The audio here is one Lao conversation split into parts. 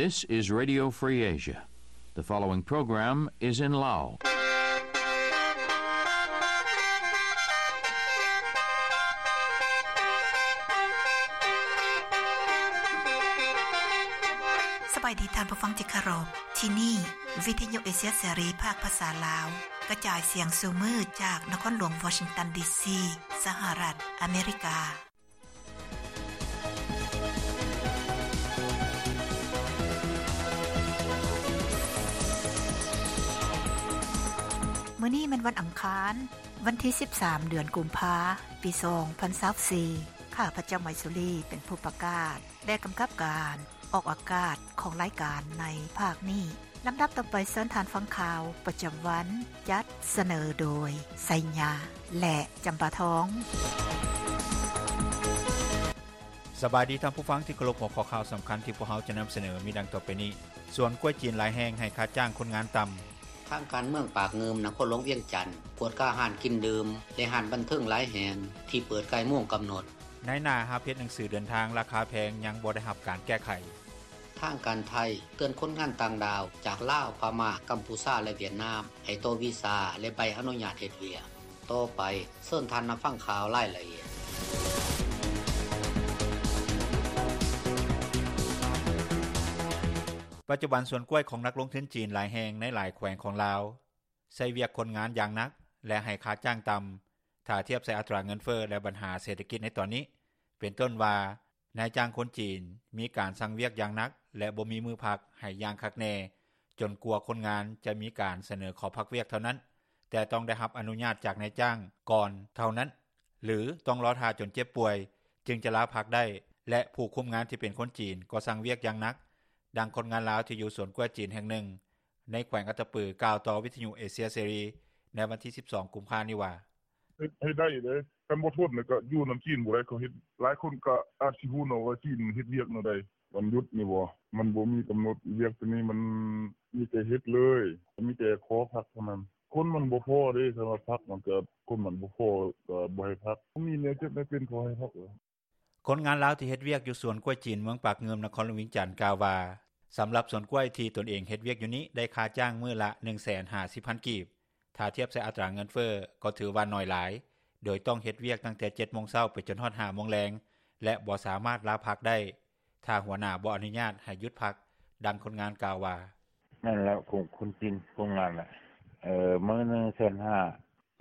This is Radio Free Asia. The following program is in Lao. ສະບາຍດີທ່ານຜູ້ຟັງທີ່ເຄົາລົບ. ທີ່ນີ້ ວິທະຍຸເອເຊຍເສລີ ພາກພາສາລາວ ກະຈາຍສຽງສູ່ມື້ຈາກນະຄອນຫຼວງວໍຊິງຕັນ ດີຊີ ສະຫະລັດອາເມລິກາ. ມື້ນີ້ແມ່ນວັນອັງຄານ, ວັນທີສິບສາມ ເດືອນກຸມພາ ປີສອງພັນຊາວສີ່. ຂ້າພະເຈົ້າ ໄມສຸລີ ເປັນຜູ້ປະກາດ ແລະ ກຳກັບການອອກອາກາດຂອງລາຍການໃນພາກນີ້. ລຳດັບຕໍ່ໄປ ເຊີນທ່ານຟັງຂ່າວປະຈຳວັນ ຈັດສະເໜີໂດຍ ໄຊຍາ ແລະ ຈຳປາທອງ. ສະບາຍດີທ່ານຜູ້ຟັງທີ່ເຄົາລົບ. ຫົວຂໍ້ຂ່າວສຳຄັນທີ່ພວກເຮົາຈະນຳສະເໜີມີດັ່ງຕໍ່ໄປນີ້. ສວນກ້ວຍຈີນຫຼາຍແຫ່ງໃຫ້ຄ່າຈ້າງຄົນງານຕ່ຳ. ທາງການເມືອງປາກງື່ມ ນະຄອນຫຼວງວຽງຈັນ ກວດກາຮ້ານກິນດື່ມ ແລະ ຮ້ານບັນເທີງຫຼາຍແຫ່ງທີ່ເປີດກາຍໂມງກຳນົດ. ນາຍໜ້າຮັບເຮັດໜັງສືເດີນທາງລາຄາແພງ ຍັງບໍ່ໄດ້ຮັບການແກ້ໄຂ. ທາງການໄທເຕືອນຄົນງານຕ່າງດ້າວຈາກລາວ, ພະມ້າ, ກຳພູຊາ ແລະ ຫວຽດນາມ ໃຫ້ຕໍ່ວີຊາ ແລະ ໃບອະນຸຍາດເຮັດວຽກ. ຕໍ່ໄປ ເຊີນທ່ານຮັບຟັງຂ່າວລາຍລະອຽດ. ປັດຈຸບັນສວນກ້ວຍຂອງນັກລົງທຶນຈີນຫຼາຍແຫ່ງໃນຫຼາຍແຂວງຂອງລາວ ໃຊ້ວຽກຄົນງານຢ່າງໜັກ ແລະ ໃຫ້ຄ່າຈ້າງຕ່ຳ ຖ້າທຽບໃສ່ອັດຕາເງິນເຟີ້ ແລະ ບັນຫາເສດຖະກິດໃນຕອນນີ້ ເປັນຕົ້ນວ່າ ນາຍຈ້າງຄົນຈີນມີການສັ່ງວຽກຢ່າງໜັກ ແລະ ບໍ່ມີມື້ພັກໃຫ້ຢ່າງຄັກແນ່ ຈົນກວ່າຄົນງານຈະມີການສະເໜີຂໍພັກວຽກເທົ່ານັ້ນ, ແຕ່ຕ້ອງໄດ້ຮັບອະນຸຍາດຈາກນາຍຈ້າງກ່ອນເທົ່ານັ້ນ ຫຼື ຕ້ອງລໍຖ້າຈົນເຈັບປ່ວຍຈຶ່ງຈະລາພັກໄດ້ ແລະ ຜູ້ຄຸມງານທີ່ເປັນຄົນຈີນກໍສັ່ງວຽກຢ່າງໜັກ, ດັ່ງຄົນງານລາວທີ່ຢູ່ສວນກ້ວຍຈີນແຫ່ງໜຶ່ງ ໃນແຂວງອັດຕະປື ກ່າວຕໍ່ວິທະຍຸເອເຊຍເສລີໃນວັນທີສິບສອງ ກຸມພານີ້ວ່າ: ເຮັດໃຫ້ໄດ້ເດ້ ຄັນບໍ່ທົນແລ້ວກໍຢູ່ນຳຈີນບໍ່ໄດ້ ເຂົາເຮັດ ຫຼາຍຄົນກໍອາດຊິຮູ້ເນາະວ່າຈີນເຮັດວຽກແນວໃດ. ວັນຢຸດນີ້ບໍ່ ມັນບໍ່ມີກຳນົດ ວຽກໂຕນີ້ມັນມີແຕ່ເຮັດເລີຍ ມີແຕ່ຂໍພັກເທົ່ານັ້ນ. ຄົນມັນບໍ່ພໍເດ້ ຄັນວ່າພັກມັນກໍ ຄົນມັນບໍ່ພໍກໍບໍ່ໃຫ້ພັກ ມີແນວເຈັບແນວເປັນ ເຂົາໃຫ້ພັກ. ຄົນງານລາວທີ່ເຮັດວຽກຢູ່ສວນກ້ວຍຈີນເມືອງປາກງື່ມ ນະຄອນຫຼວງວຽງຈັນ ກ່າວວ່າ ສຳລັບສວນກ້ວຍທີ່ຕົນເອງເຮັດວຽກຢູ່ນີ້ ໄດ້ຄ່າຈ້າງມື້ລະ ໜຶ່ງແສນຫ້າສິບພັນກີບ, ຖ້າທຽບໃສ່ອັດຕາເງິນເຟີ້ກໍຖືວ່າໜ້ອຍຫຼາຍ ໂດຍຕ້ອງເຮັດວຽກຕັ້ງແຕ່ ເຈັດໂມງເຊົ້າ ໄປຈົນຮອດ ຫ້າໂມງແລງ ແລະ ບໍ່ສາມາດລາພັກໄດ້ ຖ້າຫົວໜ້າບໍ່ອະນຸຍາດໃຫ້ຢຸດພັກ, ດັ່ງຄົນງານກ່າວວ່າ: ແມ່ນແລ້ວ ຄົນຈີນຄົນງານແຫຼະ ເອີ ມື້ໜຶ່ງແສນຫ້າ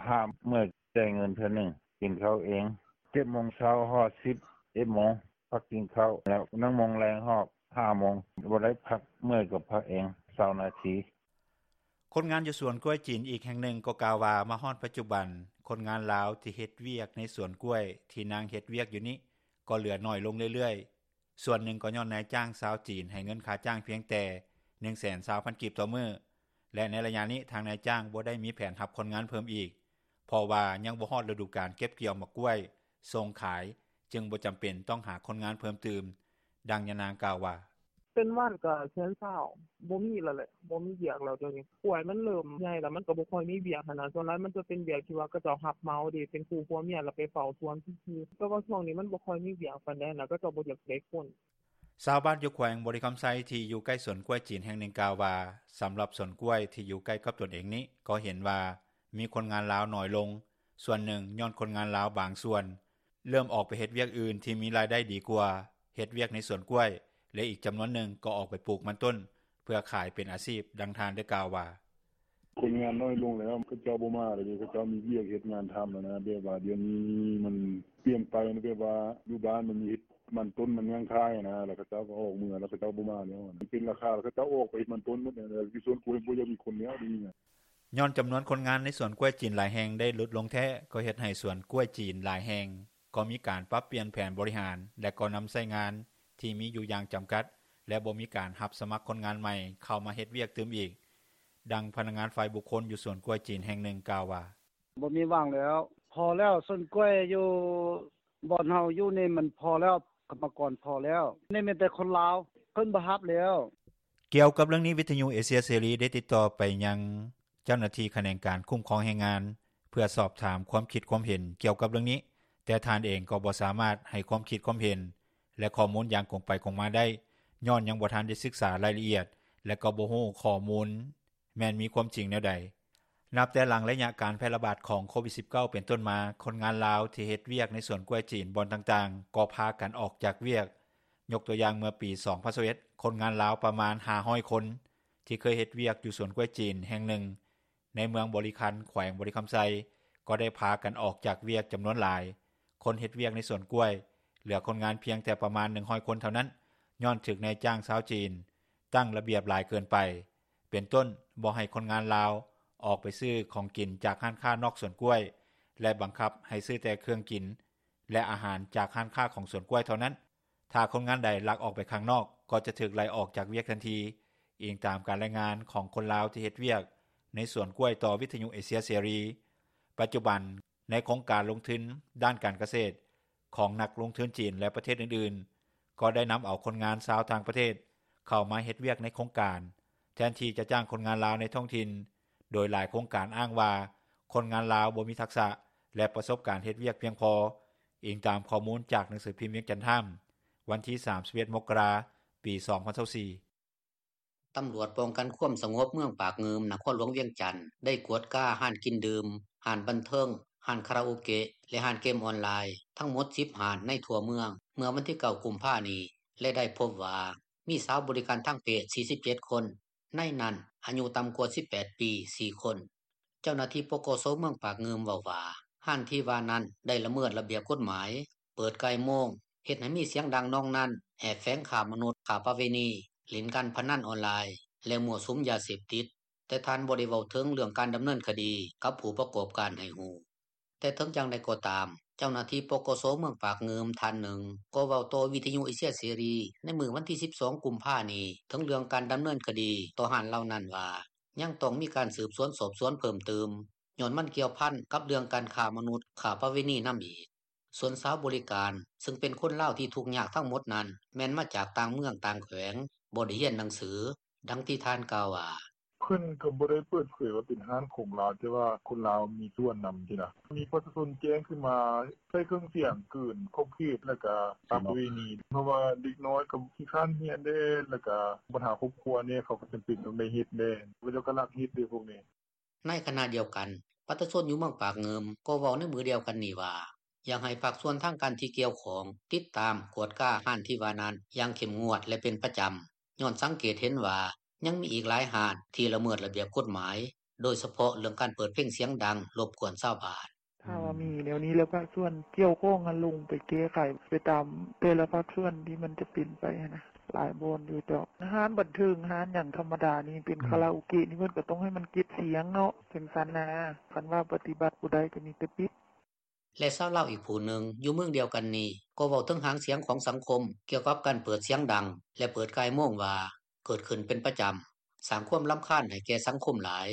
ຖ້າເມື່ອຍ ຈ່າຍເງິນເທື່ອໜຶ່ງ ກິນເຂົ້າເອງ ເຈັດໂມງເຊົ້າຮອດສິບເອັດໂມງ ພັກກິນເຂົ້າ ແລ້ວໜຶ່ງໂມງແລງຮອດຫ້າໂມງ ບໍ່ໄດ້ພັກ ເມື່ອຍກໍພັກເອງ ຊາວນາທີ. ຄົນງານຢູ່ສວນກ້ວຍຈີນອີກແຫ່ງໜຶ່ງກໍກ່າວວ່າ ມາຮອດປັດຈຸບັນ ຄົນງານລາວທີ່ເຮັດວຽກໃນສວນກ້ວຍທີ່ນາງເຮັດວຽກຢູ່ນີ້ ກໍເຫຼືອໜ້ອຍລົງເລື້ອຍໆ. ສ່ວນໜຶ່ງກໍຍ້ອນນາຍຈ້າງຊາວຈີນໃຫ້ເງິນຄ່າຈ້າງພຽງແຕ່ ໜຶ່ງແສນຊາວພັນກີບຕໍ່ມື້ ແລະ ໃນໄລຍະນີ້ທາງນາຍຈ້າງບໍ່ໄດ້ມີແຜນຮັບຄົນງານເພີ່ມອີກ ເພາະວ່າຍັງບໍ່ຮອດລະດູການເກັບກ່ຽວໝາກກ້ວຍສົ່ງຂາຍ ຈຶ່ງບໍ່ຈຳເປັນຕ້ອງຫາຄົນງານເພີ່ມຕື່ມ, ດັ່ງຍານາງກ່າວວ່າ: ເປັນວັນກໍແສນຊາວ ບໍ່ມີແລ້ວແຫຼະ ບໍ່ມີວຽກແລ້ວດຽວນີ້ ກ້ວຍມັນເລີ່ມໃຫຍ່ແລ້ວ ມັນກໍບໍ່ຄ່ອຍມີວຽກຫັ້ນນະ ສ່ວນຫຼາຍມັນຈະເປັນວຽກທີ່ວ່າເຂົາເຈົ້າຮັບເໝົາເດ້ ເປັນຄູ່ຜົວເມຍ ແລ້ວໄປເຝົ້າສວນຊື່ໆ ແຕ່ວ່າຊ່ວງນີ້ມັນບໍ່ຄ່ອຍມີວຽກປານໃດນະ ເຂົາເຈົ້າບໍ່ຢາກໄດ້ຄົນ. ຊາວບ້ານຢູ່ແຂວງບໍລິຄຳໄຊທີ່ຢູ່ໃກ້ສວນກ້ວຍຈີນແຫ່ງໜຶ່ງກ່າວວ່າ ສຳລັບສວນກ້ວຍທີ່ຢູ່ໃກ້ກັບຕົນເອງນີ້ ກໍເຫັນວ່າມີຄົນງານລາວໜ້ອຍລົງ, ສ່ວນໜຶ່ງຍ້ອນຄົນງານລາວບາງສ່ວນເລີ່ມອອກໄປເຮັດວຽກອື່ນທີ່ມີລາຍໄດ້ດີກວ່າເຮັດວຽກໃນສວນກ້ວຍ ແລະ ອີກຈຳນວນໜຶ່ງກໍອອກໄປປູກມັນຕົ້ນເພື່ອຂາຍເປັນອາຊີບ, ດັ່ງທ່ານໄດ້ກ່າວວ່າ: ຄົນງານໜ້ອຍລົງແລ້ວ ເຂົາເຈົ້າບໍ່ມາແລ້ວເດ້ ເຂົາເຈົ້າມີວຽກເຮັດງານທຳແລ້ວນະ ແບບວ່າດຽວນີ້ມັນປ່ຽນໄປ ແບບວ່າຢູ່ບ້ານມັນມີເຮັດມັນຕົ້ນມັນຫຍັງຂາຍນະ ແລ້ວເຂົາເຈົ້າກໍອອກເມືອ ແລ້ວເຂົາເຈົ້າບໍ່ມາແລ້ວ ມັນເປັນລາຄາ ເຂົາເຈົ້າອອກໄປເຮັດມັນຕົ້ນໝົດ ຢູ່ສວນກ້ວຍບໍ່ຢາກມີຄົນແລ້ວດຽວນີ້ນະ. ຍ້ອນຈຳນວນຄົນງານໃນສວນກ້ວຍຈີນຫຼາຍແຫ່ງໄດ້ຫຼຸດລົງແທ້ ກໍເຮັດໃຫ້ສວນກ້ວຍຈີນຫຼາຍແຫ່ງກໍມີການປັບປ່ຽນແຜນບໍລິຫານ ແລະ ກໍນຳໃຊ້ງານທີ່ມີຢູ່ຢ່າງຈຳກັດ ແລະ ບໍ່ມີການຮັບສະໝັກຄົນງານໃໝ່ເຂົ້າມາເຮັດວຽກຕື່ມອີກ, ດັ່ງພະນັກງານຝ່າຍບຸກຄົນຢູ່ສວນກ້ວຍຈີນແຫ່ງໜຶ່ງກ່າວວ່າ: ບໍ່ມີຫວັງແລ້ວ ພໍແລ້ວ ສວນກ້ວຍຢູ່ບ່ອນເຮົາຢູ່ນີ້ມັນພໍແລ້ວ ກຳມະກອນພໍແລ້ວ ນີ້ມີແຕ່ຄົນລາວ ເພິ່ນບໍ່ຮັບແລ້ວ. ກ່ຽວກັບເລື່ອງນີ້ ວິທະຍຸເອເຊຍເສລີໄດ້ຕິດຕໍ່ໄປຍັງເຈົ້າໜ້າທີ່ຂະແໜງການຄຸ້ມຄອງແຮງງານ ເພື່ອສອບຖາມຄວາມຄິດຄວາມເຫັນກ່ຽວກັບເລື່ອງນີ້, ແຕ່ທ່ານເອງກໍບໍ່ສາມາດໃຫ້ຄວາມຄິດຄວາມເຫັນ ແລະ ຂໍ້ມູນຢ່າງກົງໄປກົງມາໄດ້, ຍ້ອນຍັງບໍ່ທັນໄດ້ສຶກສາລາຍລະອຽດ ແລະກໍບໍ່ຮູ້ຂໍ້ມູນ ແມ່ນມີຄວາມຈິງແນວໃດ. ນັບແຕ່ຫຼັງໄລຍະການແຜ່ລະບາດຂອງໂຄວິດ-19 ເປັນຕົ້ນມາ, ຄົນງານລາວທີ່ເຮັດວຽກໃນສວນກ້ວຍຈີນບ່ອນຕ່າງໆ ກໍພາກັນອອກຈາກວຽກ. ຍົກຕົວຢ່າງເມື່ອປີ 2021, ຄົນງານລາວປະມານ 500 ຄົນ ທີ່ເຄີຍເຮັດວຽກຢູ່ສວນກ້ວຍຈີນແຫ່ງໜຶ່ງ ໃນເມືອງບໍລິຄັນ ແຂວງບໍລິຄຳໄຊ ກໍໄດ້ພາກັນອອກຈາກວຽກຈຳນວນຫຼາຍ. ຄົນເຮັດວຽກໃນສວນກ້ວຍ ເຫຼືອຄົນງານພຽງແຕ່ປະມານ 100 ຄົນເທົ່ານັ້ນ ຍ້ອນຖືກນາຍຈ້າງຊາວຈີນ ຕັ້ງລະບຽບຫຼາຍເກີນໄປ ເປັນຕົ້ນບໍ່ໃຫ້ຄົນງານລາວ ອອກໄປຊື້ຂອງກິນຈາກຮ້ານຄ້ານອກສວນກ້ວຍ ແລະບັງຄັບໃຫ້ຊື້ແຕ່ເຄື່ອງກິນ ແລະອາຫານຈາກຮ້ານຄ້າຂອງສວນກ້ວຍເທົ່ານັ້ນ. ຖ້າຄົນງານໃດລັກອອກໄປຂ້າງນອກ ກໍຈະຖືກໄລ່ອອກຈາກວຽກທັນທີ, ອີງຕາມການລາຍງານຂອງຄົນລາວທີ່ເຮັດວຽກໃນສວນກ້ວຍຕໍ່ວິທຍຸເອເຊຍເສລີ. ປັດຈຸບັນ, ໃນໂຄງການລົງທຶນດ້ານການກະເສດ ຂອງນັກລົງທຶນຈີນ ແລະປະເທດອື່ນໆ ກໍໄດ້ນຳເອົາຄົນງານຊາວຕ່າງປະເທດ ເຂົ້າມາເຮັດວຽກໃນໂຄງການ ແທນທີ່ຈະຈ້າງຄົນງານລາວໃນທ້ອງຖິ່ນ, ໂດຍຫຼາຍໂຄງການອ້າງວ່າ ຄົນງານລາວບໍ່ມີທັກສະ ແລະປະສົບການເຮັດວຽກພຽງພໍ, ອີງຕາມຂໍ້ມູນຈາກໜັງສືພິມວຽງຈັນທາມ ວັນທີ 31 ມົກກະລາ ປີ 2024. ຕຳຫຼວດປ້ອງກັນຄວາມສະຫງົບເມືອງປາກງື່ມ ນະຄອນຫຼວງວຽງຈັນ ໄດ້ກວດກາຮ້ານກິນດື່ມ, ຮ້ານບັນເທີງ, ຮ້ານຄາຣາໂອເກະ ແລະຮ້ານເກມອອນລາຍ ທັງໝົດ 10 ຮ້ານໃນທົ່ວເມືອງ ເມື່ອວັນທີ 9 ກຸມພານີ້ ແລະໄດ້ພົບວ່າ ມີສາວບໍລິການທາງເພດ 47 ຄົນ, ໃນນັ້ນອາຍຸຕ່ຳກວ່າ 18 ປີ 4 ຄົນ. ເຈົ້າໜ້າທີ່ ປກສ ເມືອງປາກງື່ມເວົ້າວ່າ ຮ້ານທີ່ວ່ານັ້ນໄດ້ລະເມີດລະບຽບກົດໝາຍ, ເປີດກ່າຍໂມງ, ເຮັດໃຫ້ມີສຽງດັງນອງນັນ, ແອບແຝງຄ້າມະນຸດ, ຄ້າປະເວນີ, ຫຼິ້ນການພະນັນອອນລາຍ ແລະມົ້ວສຸມຢາເສບຕິດ, ແຕ່ທ່ານບໍ່ໄດ້ເວົ້າເຖິງເລື່ອງການດຳເນີນຄະດີກັບຜູ້ປະກອບການໃຫ້ຮູ້. ແຕ່ເຖິງຢ່າງໃດກໍຕາມ, ເຈົ້າໜ້າທີ່ ປກສ ເມືອງປາກງື່ມທ່ານໜຶ່ງ ກໍເວົ້າຕໍ່ວິທຍຸເອເຊຍເສລີໃນມື້ວັນທີ 12 ກຸມພານີ້ ເຖິງເລື່ອງການດຳເນີນຄະດີຕໍ່ຮ້ານເຫຼົ່ານັ້ນວ່າ ຍັງຕ້ອງມີການສືບສວນສອບສວນເພີ່ມຕື່ມ ຍ້ອນມັນກ່ຽວພັນກັບເລື່ອງການຄ້າມະນຸດ, ຄ້າປະເວນີນຳອີກ. ສ່ວນສາວບໍລິການ ຊຶ່ງເປັນຄົນລາວທີ່ທຸກຍາກທັງໝົດນັ້ນ ແມ່ນມາຈາກຕ່າງເມືອງຕ່າງແຂວງ, ບໍ່ໄດ້ຮຽນໜັງສື, ດັ່ງທີ່ທ່ານກ່າວວ່າ: ເພິ່ນກໍບໍ່ໄດ້ເປີດເຜີຍວ່າເປັນຮ້ານຂອງລາວ, ແຕ່ວ່າຄົນລາວມີສ່ວນນຳຊີ້ນະ. ມີປະຊາຊົນແຈ້ງຂຶ້ນມາ ໃຊ້ເຄື່ອງສຽງເກີນຂອບເຂດ ແລ້ວກໍຄ້າປະເວນີ, ເພາະວ່າເດັກນ້ອຍກໍຂີ້ຄ້ານຮຽນແດ່ ແລ້ວກໍບັນຫາຄອບຄົວແດ່, ເຂົາກໍຈຳເປັນຕ້ອງໄດ້ເຮັດແດ່, ເຂົາເຈົ້າກໍລັກເຮັດເດ້ພວກນີ້. ໃນຂະນະດຽວກັນ, ປະຊາຊົນຢູ່ເມືອງປາກງື່ມ ກໍເວົ້າໃນມື້ດຽວກັນນີ້ວ່າ ຢາກໃຫ້ພາກສ່ວນທາງການທີ່ກ່ຽວຂ້ອງ ຕິດຕາມກວດກາຮ້ານທີ່ວ່ານັ້ນຢ່າງເຂັ້ມງວດ ແລະເປັນປະຈຳ, ຍ້ອນສັງເກດເຫັນວ່າ ຍັງມີອີກຫຼາຍຮ້ານທີ່ລະເມີດລະບຽບກົດໝາຍ, ໂດຍສະເພາະເລື່ອງການເປີດເພງສຽງດັງ ລົບກວນຊາວບ້ານ. ຖ້າວ່າມີແນວນີ້ແລ້ວ ພາກສ່ວນກ່ຽວຂ້ອງຫັ້ນ ລົງໄປແກ້ໄຂໄປຕາມແຕ່ລະພາກສ່ວນທີ່ມັນຈະເປັນໄປຫັ້ນນະ, ຫຼາຍບ່ອນຢູ່ເຈົ້າ. ຮ້ານບັນເທີງ, ຮ້ານຫຍັງທຳມະດານີ້, ເປັນຄາຣາໂອເກະນີ້ ເພິ່ນກໍຕ້ອງໃຫ້ມັນເກັບສຽງເນາະ, ຈັ່ງຊັ້ນນະ. ຄັນວ່າປະຕິບັດບໍ່ໄດ້ ກໍມີແຕ່ປິດ. ແລະຊາວລາວອີກຜູ້ໜຶ່ງຢູ່ເມືອງດຽວກັນນີ້ ກໍເວົ້າເຖິງຫາງສຽງຂອງສັງຄົມ ກ່ຽວກັບການເປີດສຽງດັງ ແລະເປີດກ່າຍໂມງວ່າ ເກີດຂຶ້ນເປັນປະຈຳ, ສ້າງຄວາມລຳຄານໃຫ້ແກ່ສັງຄົມຫຼາຍ,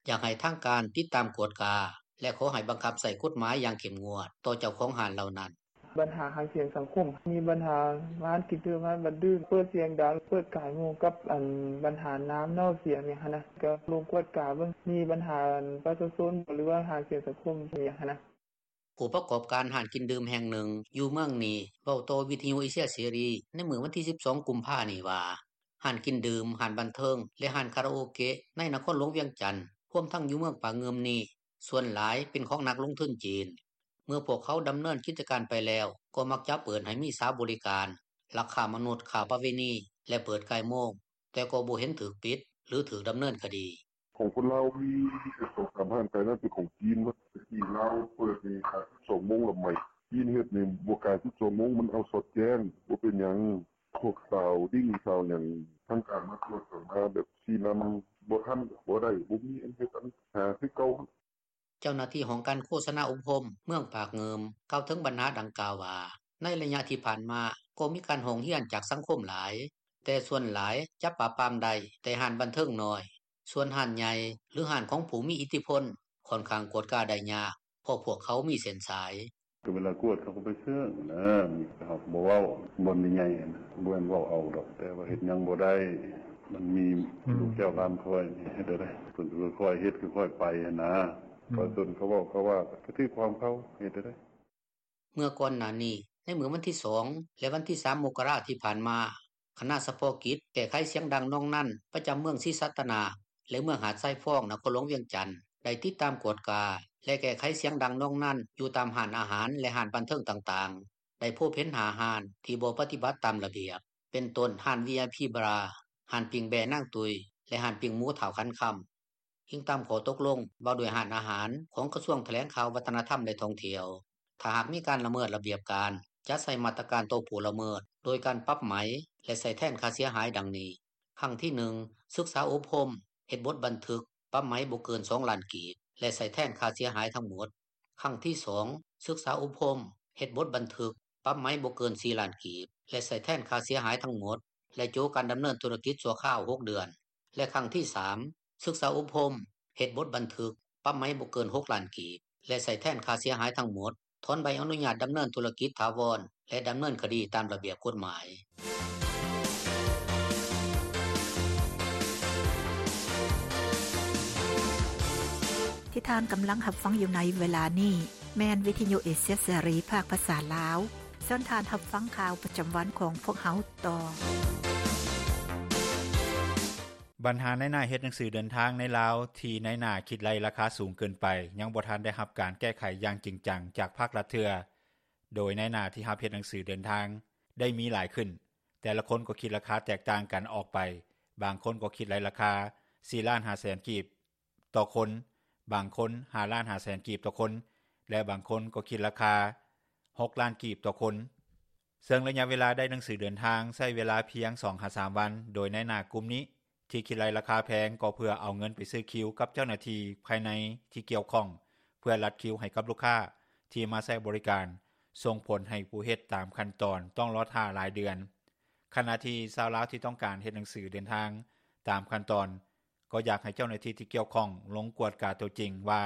ຢາກໃຫ້ທາງການຕິດຕາມກວດກາ ແລະຂໍໃຫ້ບັງຄັບໃຊ້ກົດໝາຍຢ່າງເຂັ້ມງວດຕໍ່ເຈົ້າຂອງຮ້ານເຫຼົ່ານັ້ນ. ບັນຫາຫາງສຽງສັງຄົມ, ມີບັນຫາຮ້ານກິນດື່ມ, ຮ້ານບັນດື່ມ ເປີດສຽງດັງ, ເປີດກ່າຍໂມງ ກັບອັນບັນຫານ້ຳເນົ່າສຽງຫຍັງຫັ້ນນະ, ກໍລົງກວດກາເບິ່ງ. ມີບັນຫາປະຊາຊົນ ຫຼືວ່າຫາງສຽງສັງຄົມຫຍັງຫັ້ນນະ. ຜູ້ປະກອບການຮ້ານກິນດື່ມແຫ່ງໜຶ່ງຢູ່ເມືອງນີ້ ເວົ້າຕໍ່ວິທຍຸເອເຊຍເສລີໃນມື້ວັນທີ 12 ກຸມພານີ້ວ່າ ຮ້ານກິນດື່ມ, ຮ້ານບັນເທີງ ແລະຮ້ານຄາຣາໂອເກະໃນນະຄອນຫຼວງວຽງຈັນ ຮວມທັງຢູ່ເມືອງປາກງື່ມນີ້ ສ່ວນຫຼາຍເປັນຂອງນັກລົງທຶນຈີນ. ເມື່ອພວກເຂົາດຳເນີນກິດຈະການໄປແລ້ວ ກໍມັກຈະເປີດໃຫ້ມີສາວບໍລິການ, ລັກຄ້າມະນຸດ, ຄ້າປະເວນີ ແລະເປີດກ່າຍໂມງ, ແຕ່ກໍບໍ່ເຫັນຖືກປິດ ຫຼືຖືກດຳເນີນຄະດີ. ຂອງຄົນລາວມີສອງສາມຮ້ານໄກນັ້ນ ເປັນຂອງຈີນໝົດ. ແຕ່ກີ້ລາວເປີດນີ້ຂາຍສິບສອງໂມງລະໄໝ. ຈີນເຮັດນີ້ບໍ່ກາຍສິບສອງໂມງ, ມັນເອົາສອດແຈ້ງ. ບໍ່ເປັນຫຍັງ, ພວກສາວດິ້ງສາວຫຍັງ ທາງການມາກວດກໍມາແບບຊີ້ນຳ, ບໍ່ທັນກໍບໍ່ໄດ້, ບໍ່ມີອັນເຮັດອັນຫາຄືເກົ່າ. ເຈົ້າໜ້າທີ່ຫ້ອງການໂຄສະນາອົບຮົມເມືອງປາກງື່ມ ກ່າວເຖິງບັນຫາດັ່ງກ່າວວ່າ ໃນໄລຍະທີ່ຜ່ານມາ ກໍມີການຮ້ອງຮຽນຈາກສັງຄົມຫຼາຍ, ແຕ່ສ່ວນຫຼາຍຈະປາບປາມໄດ້ແຕ່ຮ້ານບັນເທີງນ້ອຍ, ສ່ວນຮ້ານໃຫຍ່ ຫຼືຮ້ານຂອງຜູ້ມີອິດທິພົນ ຂ້ອນຂ້າງກວດກາໄດ້ຍາກ ເພາະພວກເຂົາມີເສັ້ນສາຍ. ກໍເວລາກວດເຂົາກໍໄປເຊິ່ງນະ, ເຮົາກໍບໍ່ເວົ້າ. ບ່ອນໃຫຍ່ໆນະ ບໍ່ແມ່ນເວົ້າເອົາດອກ, ແຕ່ວ່າເຮັດຫຍັງບໍ່ໄດ້. ມັນມີ ອືມ ລູກເຈົ້າຫຼານຂ້ອຍນີ້ເຮັດໄດ້, ເພິ່ນກໍຄ່ອຍເຮັດຄ່ອຍໄປຫັ້ນນະ. ອືມ ປະຊາຊົນເຂົາເວົ້າເຂົາວ່າ ກໍຖືກຂອງເຂົາ, ເຮັດໄດ້. ເມື່ອກ່ອນໜ້ານີ້ ໃນມື້ວັນທີ ສອງ ແລະວັນທີ ສາມ ມົກກະລາທີ່ຜ່ານມາ, ຄະນະສະເພາະກິດແກ້ໄຂສຽງດັງໜອງນັນ ປະຈຳເມືອງສີສັດຕະນາກ ແລະເມືອງຫາດຊາຍຟອງ ນະຄອນຫຼວງວຽງຈັນ ໄດ້ຕິດຕາມກວດກາ ແລະແກ້ໄຂສຽງດັງໜອງນັນ ຢູ່ຕາມຮ້ານອາຫານ ແລະຮ້ານບັນເທີງຕ່າງໆ ໄດ້ພົບເຫັນຫ້າຮ້ານ ທີ່ບໍ່ປະຕິບັດຕາມລະບຽບ ເປັນຕົ້ນຮ້ານ ວີໄອພີ ບາຣ, ຮ້ານປີ້ງແບ້ນາງຕຸ້ຍ ແລະຮ້ານປີ້ງໝູທ້າວຂັນຄຳ. ອີງຕາມຂໍ້ຕົກລົງວ່າດ້ວຍຮ້ານອາຫານ ຂອງກະຊວງຖະແຫຼງຂ່າວ ວັດທະນະທຳ ແລະທ່ອງທ່ຽວ, ຖ້າຫາກມີການລະເມີດລະບຽບການ ຈະໃຊ້ມາດຕະການຕໍ່ຜູ້ລະເມີດ ໂດຍການປັບໃໝ ແລະໃຊ້ແທນຄ່າເສຍຫາຍ ດັ່ງນີ້: ຄັ້ງທີໜຶ່ງ ສຶກສາອົບຮົມ, ເຮັດບົດບັນທຶກ, ປັບໃໝບໍ່ເກີນສອງລ້ານກີບ ແລະໃຊ້ແທນຄ່າເສຍຫາຍທັງໝົດ. ຄັ້ງທີສອງ ສຶກສາອົບຮົມ, ເຮັດບົດບັນທຶກ, ປັບໃໝບໍ່ເກີນສີ່ລ້ານກີບ ແລະໃຊ້ແທນຄ່າເສຍຫາຍທັງໝົດ ແລະໂຈະການດຳເນີນທຸລະກິດຊົ່ວຄາວຫົກເດືອນ ແລະຄັ້ງທີສາມ ສຶກສາອົບຮົມ, ເຮັດບົດບັນທຶກ, ປັບໃໝບໍ່ເກີນຫົກລ້ານກີບ ແລະໃຊ້ແທນຄ່າເສຍຫາຍທັງໝົດ, ຖອນໃບອະນຸຍາດດຳເນີນທຸລະກິດຖາວອນ ແລະດຳເນີນຄະດີຕາມລະບຽບກົດໝາຍ. ທີ່ທ່ານກຳລັງຮັບຟັງຢູ່ໃນເວລານີ້ ແມ່ນວິທະຍຸເອເຊຍເສລີ ພາກພາສາລາວ. ເຊີນທ່ານຮັບຟັງຂ່າວປະຈຳວັນຂອງພວກເຮົາຕໍ່. ບັນຫານາຍໜ້າເຮັດໜັງສືເດີນທາງໃນລາວ ທີ່ນາຍໜ້າຄິດໄລ່ລາຄາສູງເກີນໄປ ຍັງບໍ່ທັນໄດ້ຮັບການແກ້ໄຂຢ່າງຈິງຈັງຈາກພາກລັດເທື່ອ, ໂດຍນາຍໜ້າທີ່ຮັບເຮັດໜັງສືເດີນທາງໄດ້ມີຫຼາຍຂຶ້ນ, ແຕ່ລະຄົນກໍຄິດລາຄາແຕກຕ່າງກັນອອກໄປ, ບາງຄົນກໍຄິດໄລ່ລາຄາສີ່ລ້ານຫ້າແສນກີບຕໍ່ຄົນ, ບາງຄົນຫ້າລ້ານຫ້າແສນກີບຕໍ່ຄົນ ແລະບາງຄົນກໍຄິດລາຄາຫົກລ້ານກີບຕໍ່ຄົນ. ເຊິ່ງໄລຍະເວລາໄດ້ໜັງສືເດີນທາງໃຊ້ເວລາພຽງສອງຫາສາມວັນ, ໂດຍນາຍໜ້າກຸ່ມນີ້ທີ່ຄິດໄລ່ລາຄາແພງ ກໍເພື່ອເອົາເງິນໄປຊື້ຄິວກັບເຈົ້າໜ້າທີ່ພາຍໃນທີ່ກ່ຽວຂ້ອງ ເພື່ອລັດຄິວໃຫ້ກັບລູກຄ້າທີ່ມາໃຊ້ບໍລິການ, ສົ່ງຜົນໃຫ້ຜູ້ເຮັດຕາມຂັ້ນຕອນຕ້ອງລໍຖ້າຫຼາຍເດືອນ. ຂະນະທີ່ຊາວລາວທີ່ຕ້ອງການເຮັດໜັງສືເດີນທາງຕາມຂັ້ນຕອນ ກໍຢາກໃຫ້ເຈົ້າໜ້າທີ່ທີ່ກ່ຽວຂ້ອງລົງກວດກາຕົວຈິງວ່າ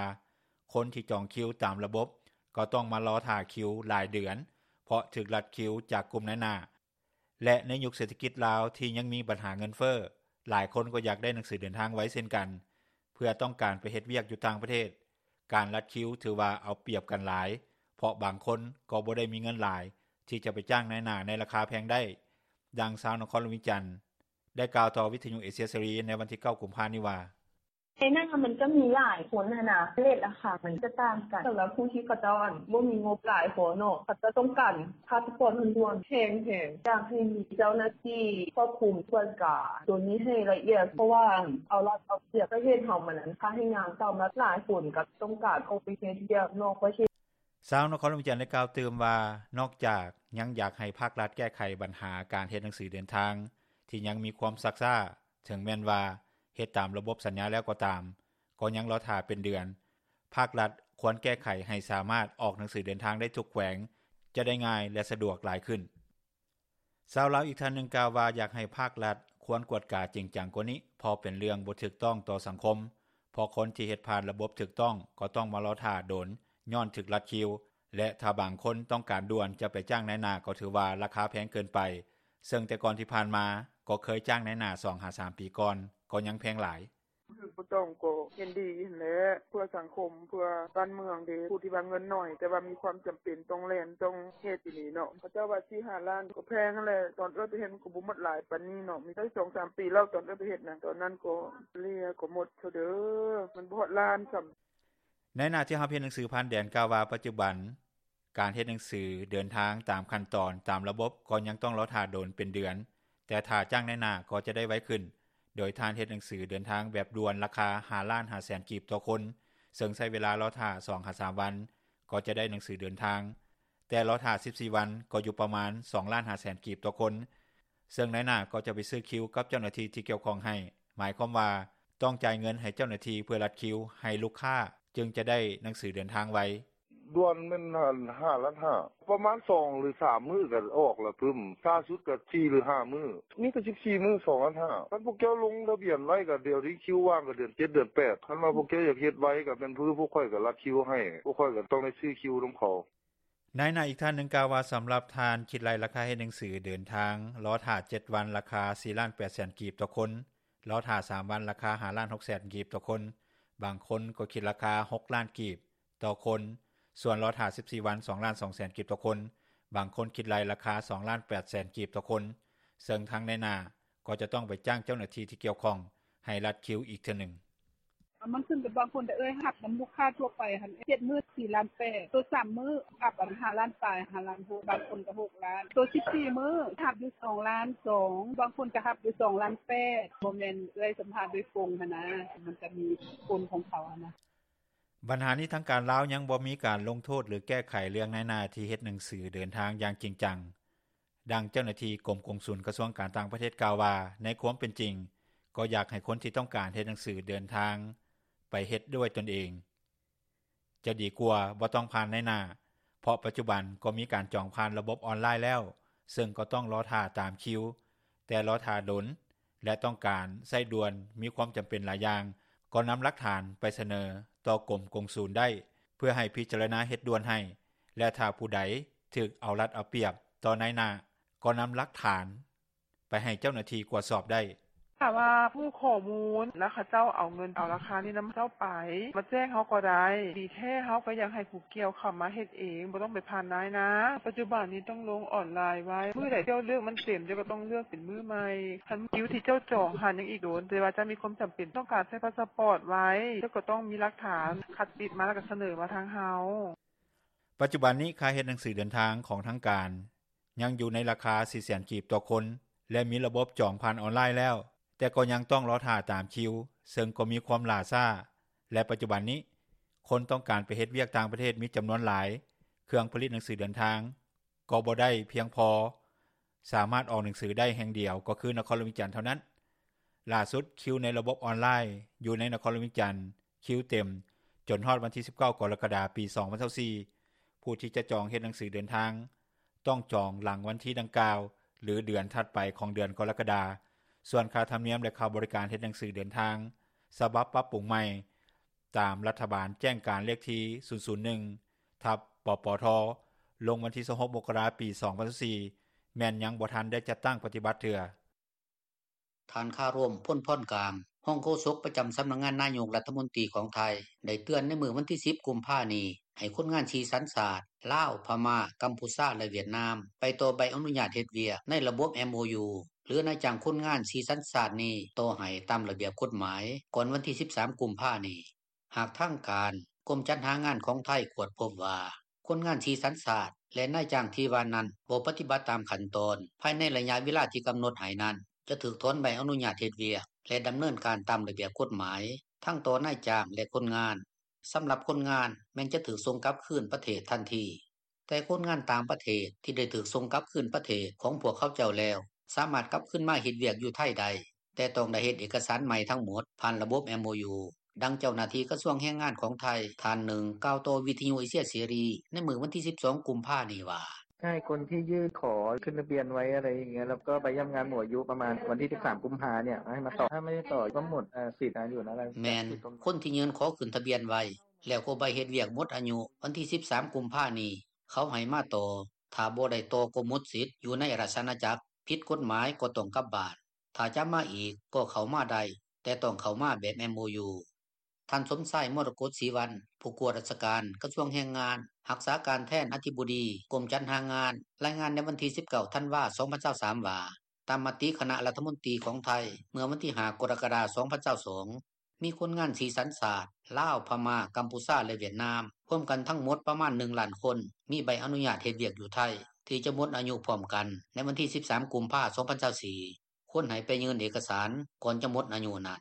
ຄົນທີ່ຈອງຄິວຕາມລະບົບກໍຕ້ອງມາລໍຖ້າຄິວຫຼາຍເດືອນ ເພາະຖືກລັດຄິວຈາກກຸ່ມນາຍໜ້າ ແລະໃນຍຸກເສດຖະກິດລາວທີ່ຍັງມີບັນຫາເງິນເຟີ້, ຫຼາຍຄົນກໍຢາກໄດ້ໜັງສືເດີນທາງໄວເຊັ່ນກັນ ເພື່ອຕ້ອງການໄປເຮັດວຽກຢູ່ຕ່າງປະເທດ. ການລັດຄິວຖືວ່າເອົາປຽບກັນຫຼາຍ, ເພາະບາງຄົນກໍບໍ່ໄດ້ມີເງິນຫຼາຍທີ່ຈະໄປຈ້າງນາຍໜ້າໃນລາຄາແພງໄດ້. ດັ່ງຊາວນະຄອນຫຼວງວຽງຈັນ ໄດ້ກ່າວຕໍ່ວິທະຍຸເອເຊຍເສລີໃນວັນທີເກົ້າ ກຸມພານີ້ວ່າ: ໃນນັ້ນມັນກໍມີຫຼາຍຄົນຫັ້ນນະ ເຣດລາຄາມັນຈະຕ່າງກັນ. ສຳລັບຜູ້ທີ່ເຂົາເຈົ້າບໍ່ມີງົບຫຼາຍພໍເນາະ ເຂົາເຈົ້າຕ້ອງການພາສປອດດ່ວນໆ ແພງໆ. ຢາກໃຫ້ມີເຈົ້າໜ້າທີ່ຄວບຄຸມກວດກາໂຕນີ້ໃຫ້ລະອຽດ ເພາະວ່າເອົາລັດເອົາປຽບ ປະເທດເຮົາມັນພາກແຮງງານເກົ່າມາ ຫຼາຍຄົນກໍຕ້ອງການອອກໄປເຮັດວຽກນອກປະເທດ. ຊາວນະຄອນຫຼວງວຽງຈັນໄດ້ກ່າວຕື່ມວ່າ ນອກຈາກຍັງຢາກໃຫ້ພາກລັດແກ້ໄຂບັນຫາການເຮັດໜັງສືເດີນທາງທີ່ຍັງມີຄວາມຊັກຊ້າ, ເຖິງແມ່ນວ່າເຮັດຕາມລະບົບສັນຍາແລ້ວກໍຕາມ, ກໍຍັງລໍຖ້າເປັນເດືອນ. ພາກລັດຄວນແກ້ໄຂໃຫ້ສາມາດອອກໜັງສືເດີນທາງໄດ້ທຸກແຂວງ ຈະໄດ້ງ່າຍ ແລະ ສະດວກຫຼາຍຂຶ້ນ. ຊາວລາວອີກທ່ານໜຶ່ງກ່າວວ່າ ຢາກໃຫ້ພາກລັດຄວນກວດກາຈິງຈັງກວ່ານີ້ ເພາະເປັນເລື່ອງບໍ່ຖືກຕ້ອງຕໍ່ສັງຄົມ, ເພາະຄົນທີ່ເຮັດຜ່ານລະບົບຖືກຕ້ອງກໍຕ້ອງມາລໍຖ້າດົນຍ້ອນຖືກລັດຄິວ ແລະ ຖ້າບາງຄົນຕ້ອງການດ່ວນຈະໄປຈ້າງນາຍໜ້າກໍຖືວ່າລາຄາແພງເກີນໄປ, ເຊິ່ງແຕ່ກ່ອນທີ່ຜ່ານມາກໍເຄີຍຈ້າງນາຍໜ້າສອງຫາສາມປີກ່ອນ ກໍຍັງແພງຫຼາຍ. ບໍ່ຖືກບໍ່ຕ້ອງກໍເຫັນດີຫັ້ນແຫຼະ ເພື່ອສັງຄົມ ເພື່ອບ້ານເມືອງເດ້. ຜູ້ທີ່ວ່າເງິນໜ້ອຍ ແຕ່ວ່າມີຄວາມຈຳເປັນຕ້ອງແລ່ນຕ້ອງເຮັດອີ່ຫຼີເນາະ ເຂົາເຈົ້າວ່າສີ່ຫ້າລ້ານ ກໍແພງຫັ້ນແຫຼະ. ຕອນເອື້ອຍໄປເຮັດມັນກໍບໍ່ໝົດຫຼາຍປານນີ້ເນາະ ມີໄດ້ສອງສາມປີແລ້ວ ຕອນເອື້ອຍໄປເຮັດນະ ຕອນນັ້ນກໍເສຍກໍໝົດເທື່ອເດີ ມັນບໍ່ຮອດລ້ານຊ້ຳ. ນາຍໜ້າທີ່ຮັບເຮັດໜັງສືຜ່ານແດນກ່າວວ່າ ປັດຈຸບັນ ການເຮັດໜັງສືເດີນທາງຕາມຂັ້ນຕອນຕາມລະບົບກໍຍັງຕ້ອງລໍຖ້າດົນເປັນເດືອນ, ແຕ່ຖ້າຈ້າງນາຍໜ້າກໍຈະໄດ້ໄວຂຶ້ນ, ໂດຍທ່ານເຮັດໜັງສືເດີນທາງແບບດ່ວນລາຄາຫ້າລ້ານຫ້າແສນກີບຕໍ່ຄົນ, ເຊິ່ງໃຊ້ເວລາລໍຖ້າສອງຫາສາມວັນກໍຈະໄດ້ໜັງສືເດີນທາງ, ແຕ່ລໍຖ້າສິບສີ່ວັນກໍຢູ່ປະມານສອງລ້ານຫ້າແສນກີບຕໍ່ຄົນ, ເຊິ່ງນາຍໜ້າກໍຈະໄປຊື້ຄິວກັບເຈົ້າໜ້າທີ່ທີ່ກ່ຽວຂ້ອງໃຫ້, ໝາຍຄວາມວ່າຕ້ອງຈ່າຍເງິນໃຫ້ເຈົ້າໜ້າທີ່ເພື່ອລັດຄິວໃຫ້ລູກຄ້າ ຈຶ່ງຈະໄດ້ໜັງສືເດີນທາງໄວ. ດ່ວນແມ່ນຫ້າລ້ານຫ້າ ປະມານສອງຫຼືສາມມື້ກໍອອກລະປຶ້ມ ຊ້າສຸດກໍສີ່ຫຼືຫ້າມື້ ມີແຕ່ສິບສີ່ມື້ສອງລ້ານຫ້າ ຄັນພວກເຈົ້າລົງທະບຽນໄວ້ກໍດຽວນີ້ຄິວວ່າງກໍເດືອນເຈັດເດືອນແປດ ຄັນວ່າພວກເຈົ້າຢາກເຮັດໄວກໍແມ່ນຄືພວກຂ້ອຍກໍລັດຄິວໃຫ້ ພວກຂ້ອຍກໍຕ້ອງໄດ້ຊື້ຄິວນຳເຂົາ. ນາຍໜ້າອີກທ່ານໜຶ່ງກ່າວວ່າ ສຳລັບທ່ານຄິດໄລ່ລາຄາເຮັດໜັງສືເດີນທາງ ລໍຖ້າເຈັດວັນລາຄາສີ່ລ້ານແປດແສນກີບຕໍ່ຄົນ, ລໍຖ້າສາມວັນລາຄາຫ້າລ້ານຫົກແສນກີບຕໍ່ຄົນ, ບາງຄົນກໍຄິດລາຄາຫົກລ້ານກີບ ຕໍ່ຄົນ, ສ່ວນລໍຖ້າສິບສີ່ວັນສອງລ້ານສອງແສນກີບຕໍ່ຄົນ, ບາງຄົນຄິດໄລ່ລາຄາສອງລ້ານແປດແສນກີບຕໍ່ຄົນ, ເຊິ່ງທາງນາຍໜ້າ ກໍຈະຕ້ອງໄປຈ້າງເຈົ້າໜ້າທີ່ ທີ່ກ່ຽວຂ້ອງ ໃຫ້ລັດຄິວອີກເທື່ອໜຶ່ງ. “ມັນຂຶ້ນກັບບາງຄົນເດີ້ເອື້ອຍ ຮັບນຳລູກຄ້າທົ່ວໄປຫັ້ນ ເຈັດມື້ສີ່ລ້ານແປດ ໂຕສາມມື້ຮັບອັນຫ້າລ້ານປາຍ ຫ້າລ້ານຫົກ ບາງຄົນກໍຫົກລ້ານ ໂຕສິບສີ່ມື້ຮັບຢູ່ສອງລ້ານສອງ ບາງຄົນກໍຮັບຢູ່ສອງລ້ານແປດ ບໍ່ແມ່ນເອື້ອຍສຳພາດໂດຍກົງຫັ້ນນ່າ ມັນກໍມີຜົນຂອງເຂົາຫັ້ນນ່າ.” ບັນຫານີ້ ທາງການລາວຍັງບໍ່ມີການລົງໂທດ ຫຼື ແກ້ໄຂເລື່ອງນາຍໜ້າທີ່ເຮັດໜັງສືເດີນທາງຢ່າງຈິງຈັງ. ດັ່ງເຈົ້າໜ້າທີ່ກົມກົງສຸນກະຊວງການຕ່າງປະເທດກ່າວວ່າ ໃນຄວາມເປັນຈິງ ກໍຢາກໃຫ້ຄົນທີ່ຕ້ອງການເຮັດໜັງສືເດີນທາງ ໄປເຮັດດ້ວຍຕົນເອງ ຈະດີກວ່າບໍ່ຕ້ອງຜ່ານນາຍໜ້າ ເພາະປັດຈຸບັນກໍມີການຈອງຜ່ານລະບົບອອນລາຍແລ້ວ ເຊິ່ງກໍຕ້ອງລໍຖ້າຕາມຄິວ ແຕ່ລໍຖ້າດົນ ແລະ ຕ້ອງການໃຊ້ດ່ວນ ມີຄວາມຈຳເປັນຫຼາຍຢ່າງ ກໍນຳຫຼັກຖານໄປສະເໜີຕໍ່ກົມກົງສຸນໄດ້ ເພື່ອໃຫ້ພິຈາລະນາເຮັດດ່ວນໃຫ້ ແລະ ຖ້າຜູ້ໃດຖືກເອົາລັດເອົາປຽບຕໍ່ນາຍໜ້າ ກໍນຳຫຼັກຖານໄປໃຫ້ເຈົ້າໜ້າທີ່ກວດສອບໄດ້. “ຖ້າວ່າຮູ້ຂໍ້ມູນ ແລ້ວເຂົາເຈົ້າເອົາເງິນ ເອົາລາຄານີ້ນຳເຈົ້າໄປ ມາແຈ້ງເຮົາກໍໄດ້ ດີແທ້ເຮົາກໍຢາກໃຫ້ຜູ້ກ່ຽວເຂົ້າມາເຮັດເອງ ບໍ່ຕ້ອງໄປຜ່ານນາຍໜ້າ ປັດຈຸບັນນີ້ຕ້ອງລົງອອນລາຍໄວ້ ມື້ໃດເຈົ້າເລືອກມັນເຕັມ ເຈົ້າກໍຕ້ອງເລືອກເປັນມື້ໃໝ່ ຄັນຄິວທີ່ເຈົ້າຈອງຫັ້ນຍັງອີກດົນ ແຕ່ວ່າເຈົ້າມີຄວາມຈຳເປັນຕ້ອງການໃຊ້ພາສປອດໄວ້ ເຈົ້າກໍຕ້ອງມີຫຼັກຖານ ຄັດຕິດມາແລ້ວກໍສະເໜີມາທາງເຮົາ.” ປັດຈຸບັນນີ້ ຄ່າເຮັດໜັງສືເດີນທາງຂອງທາງການ ຍັງຢູ່ໃນລາຄາສີ່ແສນກີບຕໍ່ຄົນ ແລະ ມີລະບົບຈອງຜ່ານອອນລາຍແລ້ວ ແຕ່ກໍຍັງຕ້ອງລໍຖ້າຕາມຄິວ ເຊິ່ງກໍມີຄວາມຫຼ້າຊ້າ ແລະ ປັດຈຸບັນນີ້ ຄົນຕ້ອງການໄປເຮັດວຽກຕ່າງປະເທດມີຈຳນວນຫຼາຍ ເຄື່ອງຜະລິດໜັງສືເດີນທາງ ກໍບໍ່ໄດ້ພຽງພໍ ສາມາດອອກໜັງສືໄດ້ແຫ່ງດຽວ ກໍຄືນະຄອນຫຼວງວຽງຈັນເທົ່ານັ້ນ. ຫຼ້າສຸດ ຄິວໃນລະບົບອອນລາຍ ຢູ່ໃນນະຄອນຫຼວງວຽງຈັນ ຄິວເຕັມ ຈົນຮອດວັນທີສິບເກົ້າ ກໍລະກະດາ ປີສອງພັນຊາວສີ່ ຜູ້ທີ່ຈະຈອງເຮັດໜັງສືເດີນທາງ ຕ້ອງຈອງຫຼັງວັນທີດັ່ງກ່າວ ຫຼື ເດືອນຖັດໄປຂອງເດືອນກໍລະກະດາ. ສ່ວນຄ່າທຳນຽມ ແລະ ຄ່າບໍລິການເຮັດໜັງສືເດີນທາງ ສະບັບປັບປຸງໃໝ່ ຕາມລັດຖະບານແຈ້ງການເລກທີ ສູນສູນໜຶ່ງ ທັບ ປປທ ລົງວັນທີຊາວຫົກ ມົກກະລາ ປີສອງພັນຊາວສີ່ ແມ່ນຍັງບໍ່ທັນໄດ້ຈັດຕັ້ງປະຕິບັດເທື່ອ. ທ່ານ ຄາໂຣມ ພົນພອນກາງ ຮອງໂຄສົກປະຈຳສຳນັກງານນາຍົກລັດຖະມົນຕີຂອງໄທ ໄດ້ເຕືອນໃນມື້ວັນທີສິບ ກຸມພານີ້ ໃຫ້ຄົນງານສີ່ສັນຊາດ ລາວ, ພະມ້າ, ກຳພູຊາ ແລະ ຫວຽດນາມ ໄປຕໍ່ໃບອະນຸຍາດເຮັດວຽກໃນລະບົບ MOU ຫຼື ນາຍຈ້າງຄົນງານສີ່ສັນຊາດນີ້ຕໍ່ໃຫ້ຕາມລະບຽບກົດໝາຍ ກ່ອນວັນທີສິບສາມ ກຸມພານີ້. ຫາກທາງການ ກົມຈັດຫາງານຂອງໄທກວດພົບວ່າ ຄົນງານສີ່ສັນຊາດ ແລະ ນາຍຈ້າງທີ່ວ່ານັ້ນ ບໍ່ປະຕິບັດຕາມຂັ້ນຕອນ ພາຍໃນໄລຍະເວລາທີ່ກຳນົດໃຫ້ນັ້ນ ຈະຖືກຖອນໃບອະນຸຍາດເຮັດວຽກ ແລະ ດຳເນີນການຕາມລະບຽບກົດໝາຍ. ທັງຕໍ່ນາຍຈ້າງ ແລະ ຄົນງານ. ສຳລັບຄົນງານ ແມ່ນຈະຖືກສົ່ງກັບຄືນປະເທດທັນທີ, ແຕ່ຄົນງານຕ່າງປະເທດທີ່ໄດ້ຖືກສົ່ງກັບຄືນປະເທດຂອງພວກເຂົາເຈົ້າແລ້ວ ສາມາດກັບຄືນມາເຮັດວຽກຢູ່ໄທໄດ້, ແຕ່ຕ້ອງໄດ້ເຮັດເອກະສານໃໝ່ທັງໝົດ ຜ່ານລະບົບ MOU. ດັ່ງເຈົ້າໜ້າທີ່ກະຊວງແຮງງານຂອງໄທ ທ່ານໜຶ່ງ ກ່າວຕໍ່ວິທະຍຸເອເຊຍເສລີ ໃນມື້ວັນທີສິບສອງ ກຸມພານີ້ວ່າ: “ໃຫ້ຄົນທີ່ຍື່ນຂໍຂຶ້ນທະບຽນໄວ້ ອະໄລຢ່າງເງີ້ຍ ແລ້ວກໍໃບຢ້ຳງານໝົດອາຍຸປະມານວັນທີສິບສາມ ກຸມພານີ້ ໃຫ້ມາຕໍ່ ຖ້າໄມ່ໄດ້ຕໍ່ກໍໝົດສິດອາຍຸນັ້ນແຫຼະ.” ແມ່ນ ຄົນທີ່ຍື່ນຂໍຂຶ້ນທະບຽນໄວ້ ແລ້ວກໍໃບເຮັດວຽກໝົດອາຍຸວັນທີສິບສາມ ກຸມພານີ້ ເຂົາໃຫ້ມາຕໍ່, ຖ້າບໍ່ໄດ້ຕໍ່ກໍໝົດສິດຢູ່ໃນລາຊະອານາຈັກ, ຜິດກົດໝາຍກໍຕ້ອງກັບບ້ານ, ຖ້າຈະມາອີກກໍເຂົ້າມາໄດ້, ແຕ່ຕ້ອງເຂົ້າມາແບບ MOU. ທ່ານ ສົມຊາຍ ມໍລະກົດສີວັນ ຜູ້ກວດລາຊະການ ກະຊວງແຮງງານ ຮັກສາການແທນອະທິບໍດີ ກົມຈັດຫາງານ ລາຍງານໃນວັນທີສິບເກົ້າ ທັນວາ ສອງພັນຊາວສາມ ວ່າ ຕາມມະຕິຄະນະລັດຖະມົນຕີຂອງໄທ ເມື່ອວັນທີຫ້າ ກໍລະກະດາ ສອງພັນຊາວສອງ ມີຄົນງານສີ່ສັນຊາດ ລາວ, ພະມ້າ, ກຳພູຊາ ແລະ ຫວຽດນາມ ຮວມກັນທັງໝົດປະມານ ໜຶ່ງລ້ານຄົນ ມີໃບອະນຸຍາດເຮັດວຽກຢູ່ໄທ ທີ່ຈະໝົດອາຍຸພ້ອມກັນໃນວັນທີສິບສາມ ກຸມພາ ສອງພັນຊາວສີ່ ຄວນໃຫ້ໄປຍື່ນເອກະສານກ່ອນຈະໝົດອາຍຸນັ້ນ.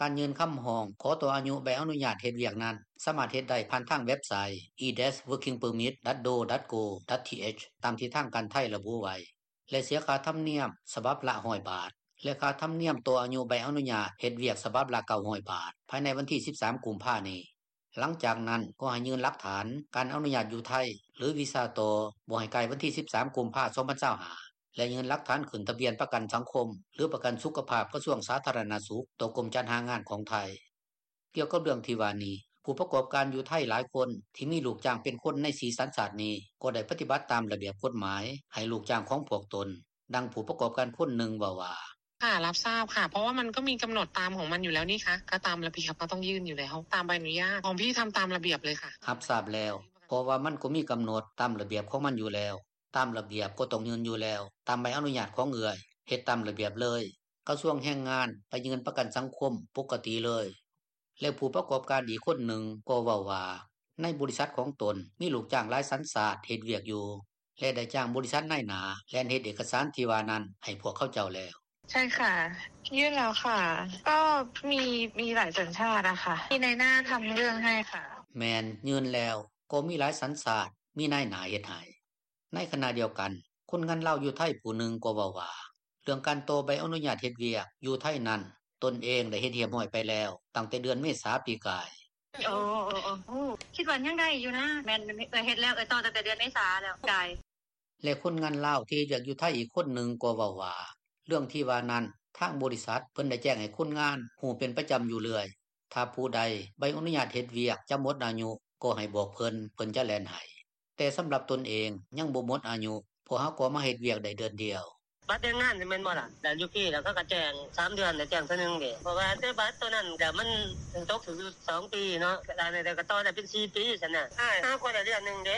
ການຍື່ນຄຳຮ້ອງຂໍຕໍ່ອາຍຸໃບອະນຸຍາດເຮັດວຽກນັ້ນ ສາມາດເຮັດໄດ້ຜ່ານທາງເວັບໄຊ e-working permit dot do dot go dot th ຕາມທີ່ທາງການໄທລະບຸໄວ້ ແລະ ເສຍຄ່າທຳນຽມສະບັບລະ ຮ້ອຍບາດ ແລະ ຄ່າທຳນຽມຕໍ່ອາຍຸໃບອະນຸຍາດເຮັດວຽກສະບັບລະ ເກົ້າຮ້ອຍບາດ ພາຍໃນວັນທີສິບສາມ ກຸມພານີ້. ຫຼັງຈາກນັ້ນກໍໃຫ້ຍື່ນຫຼັກຖານການອະນຸຍາດຢູ່ໄທ ຫຼື ວີຊາຕໍ່ ບໍ່ໃຫ້ກາຍວັນທີສິບສາມ ກຸມພາ ສອງພັນຊາວຫ້າ ແລະ ຍື່ນຫຼັກຖານຂຶ້ນທະບຽນປະກັນສັງຄົມ ຫຼື ປະກັນສຸຂະພາບກະຊວງສາທາລະນະສຸກ ຕໍ່ກົມຈັດຫາງານຂອງໄທ. ກ່ຽວກັບເລື່ອງທີ່ວ່ານີ້ ຜູ້ປະກອບການຢູ່ໄທຫຼາຍຄົນທີ່ມີລູກຈ້າງເປັນຄົນໃນສີ່ສັນຊາດນີ້ ກໍໄດ້ປະຕິບັດຕາມລະບຽບກົດໝາຍໃຫ້ລູກຈ້າງຂອງພວກຕົນ. ດັ່ງຜູ້ປະກອບການຄົນໜຶ່ງເວົ້າວ່າ: “ຫາ ຮັບຊາບຄ່ະ ເພາະວ່າມັນກໍມີກຳນົດຕາມຂອງມັນຢູ່ແລ້ວນີ້ຄະ ກໍຕາມລະບຽບເຮົາຕ້ອງຍື່ນຢູ່ແລ້ວ ຕາມໃບອະນຸຍາດ ຂອງພີ່ທຳຕາມລະບຽບເລີຍຄ່ະ.” ຮັບຊາບແລ້ວ ເພາະວ່າມັນກໍມີກຳນົດຕາມລະບຽບຂອງມັນຢູ່ແລ້ວ ຕາມລະບຽບກໍຕ້ອງຍື່ນຢູ່ແລ້ວ ຕາມໃບອະນຸຍາດຂອງເອື້ອຍ ເຮັດຕາມລະບຽບເລີຍ. ກະຊວງແຮງງານ ໄປຍື່ນປະກັນສັງຄົມ ປົກກະຕິເລີຍ. ແລະຜູ້ປະກອບການອີກຄົນໜຶ່ງ ກໍເວົ້າວ່າ ໃນບໍລິສັດຂອງຕົນ ມີລູກຈ້າງຫຼາຍສັນຊາດ ເຮັດວຽກຢູ່ ແລະໄດ້ຈ້າງບໍລິສັດນາຍໜ້າ ແລ່ນເຮັດເອກກະສານທີ່ວ່ານັ້ນ ໃຫ້ພວກເຂົາເຈົ້າແລ້ວ. ໃຊ່ຄ່ະ ຍື່ນແລ້ວຄ່ະ ກໍມີ ມີຫຼາຍສັນຊາດ ມີນາຍໜ້າທຳເລື່ອງໃຫ້ຄ່ະ. ແມ່ນ ຍື່ນແລ້ວ ກໍມີຫຼາຍສັນຊາດ ມີນາຍໜ້າເຮັດໃຫ້. ໃນຂະນະດຽວກັນ ຄົນງານລາວຢູ່ໄທ ຜູ້ໜຶ່ງກໍເວົ້າວ່າ ເລື່ອງການຕໍ່ໃບອະນຸຍາດເຮັດວຽກ ຢູ່ໄທນັ້ນ ຕົນເອງໄດ້ເຮັດຮຽບຮ້ອຍໄປແລ້ວ ຕັ້ງແຕ່ເດືອນເມສາປີກາຍ. ໂອ້ ຄິດວ່າຍັງໄດ້ຢູ່ນະ ແມ່ນ ເອື້ອຍເຮັດແລ້ວ ເອື້ອຍຕໍ່ຕັ້ງແຕ່ເດືອນເມສາແລ້ວ ກາຍ. ແລະຄົນງານລາວ ທີ່ເຮັດວຽກຢູ່ໄທອີກຄົນໜຶ່ງ ກໍເວົ້າວ່າ ເລື່ອງທີ່ວ່ານັ້ນ ທາງບໍລິສັດ ເພິ່ນໄດ້ແຈ້ງໃຫ້ຄົນງານ ຮູ້ເປັນປະຈຳຢູ່ເລື້ອຍ ຖ້າຜູ້ໃດ ໃບອະນຸຍາດເຮັດວຽກ ຈະໝົດອາຍຸ ກໍໃຫ້ບອກເພິ່ນ ເພິ່ນຈະແລ່ນໃຫ້. ແຕ່ສຳລັບຕົນເອງ ຍັງບໍ່ໝົດອາຍຸ ເພາະຫາກໍມາເຮັດວຽກໄດ້ເດືອນດຽວ. ບັດແຮງງານນີ້ແມ່ນບໍ່ລະ ແລ້ວຢູ່ພີ້ ແລ້ວເຂົາກໍແຈ້ງ ສາມເດືອນ ແລ້ວແຈ້ງເທື່ອໜຶ່ງເດ້ ເພາະວ່າແຕ່ບັດໂຕນັ້ນ ມັນຕົກຖືກຢູ່ສອງປີເນາະ ກະໄດ້ ກະຕໍ່ໄດ້ເປັນສີ່ປີຊັ້ນນະ ຫາກໍໄດ້ເດືອນໜຶ່ງເດ້.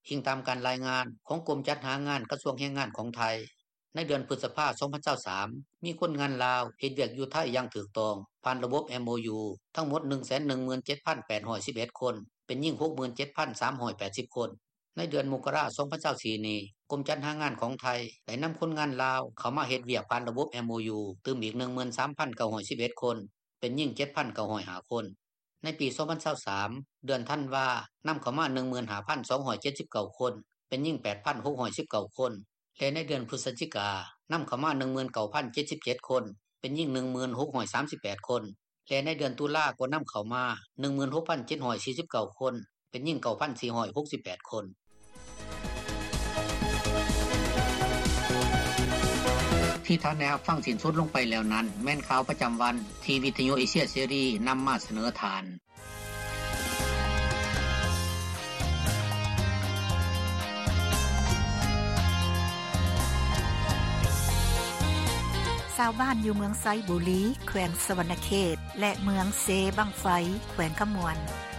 ອີງຕາມການລາຍງານ ຂອງກົມຈັດຫາງານ ກະຊວງແຮງງານຂອງໄທ, ໃນເດືອນພຶດສະພາ ສອງພັນຊາວສາມ ມີຄົນງານລາວ ເຮັດວຽກຢູ່ໄທຢ່າງຖືກຕ້ອງ ຜ່ານລະບົບ MOU ທັງໝົດ ໜຶ່ງແສນໜຶ່ງໝື່ນເຈັດພັນແປດຮ້ອຍສິບເອັດຄົນ ເປັນຍິງ ຫົກໝື່ນເຈັດພັນສາມຮ້ອຍແປດສິບຄົນ. ໃນເດືອນມົກກະລາ ສອງພັນຊາວສີ່ນີ້ ກົມຈັດຫາງານຂອງໄທ ໄດ້ນຳຄົນງານລາວ ເຂົ້າມາເຮັດວຽກຜ່ານລະບົບ MOU ຕື່ມອີກ ໜຶ່ງໝື່ນສາມພັນເກົ້າຮ້ອຍສິບເອັດຄົນ ເປັນຍິງ ເຈັດພັນເກົ້າຮ້ອຍຫ້າຄົນ. ໃນປີ ສອງພັນຊາວສາມ ເດືອນທັນວາ ນຳເຂົ້າມາ ໜຶ່ງໝື່ນຫ້າພັນສອງຮ້ອຍເຈັດສິບເກົ້າຄົນ ເປັນຍິງ ແປດພັນຫົກຮ້ອຍສິບເກົ້າຄົນ ແລະໃນເດືອນພຶສຈິກາ ນຳເຂົ້າມາ ໜຶ່ງໝື່ນເກົ້າພັນເຈັດສິບເຈັດຄົນ ເປັນຍິງ ໜຶ່ງໝື່ນຫົກຮ້ອຍສາມສິບແປດຄົນ ແລະໃນເດືອນຕຸລາ ກໍນຳເຂົ້າມາ ໜຶ່ງໝື່ນຫົກພັນເຈັດຮ້ອຍສີ່ສິບເກົ້າຄົນ ເປັນຍິງ ເກົ້າພັນສີ່ຮ້ອຍຫົກສິບແປດຄົນ. ທີ່ທ່ານໄດ້ຮັບຟັງສິ້ນສຸດລົງໄປແລ້ວນັ້ນ ແມ່ນຂ່າວປະຈຳວັນ ທີ່ວິທະຍຸເອເຊຍເສລີ ນຳມາສະເໜີທ່ານ. ຊາວບ້ານຢູ່ເມືອງໄຊບູລີ ແຂວງສະຫວັນນະເຂດ ແລະ ເມືອງເຊບັ້ງໄຟ ແຂວງຄຳມ່ວນ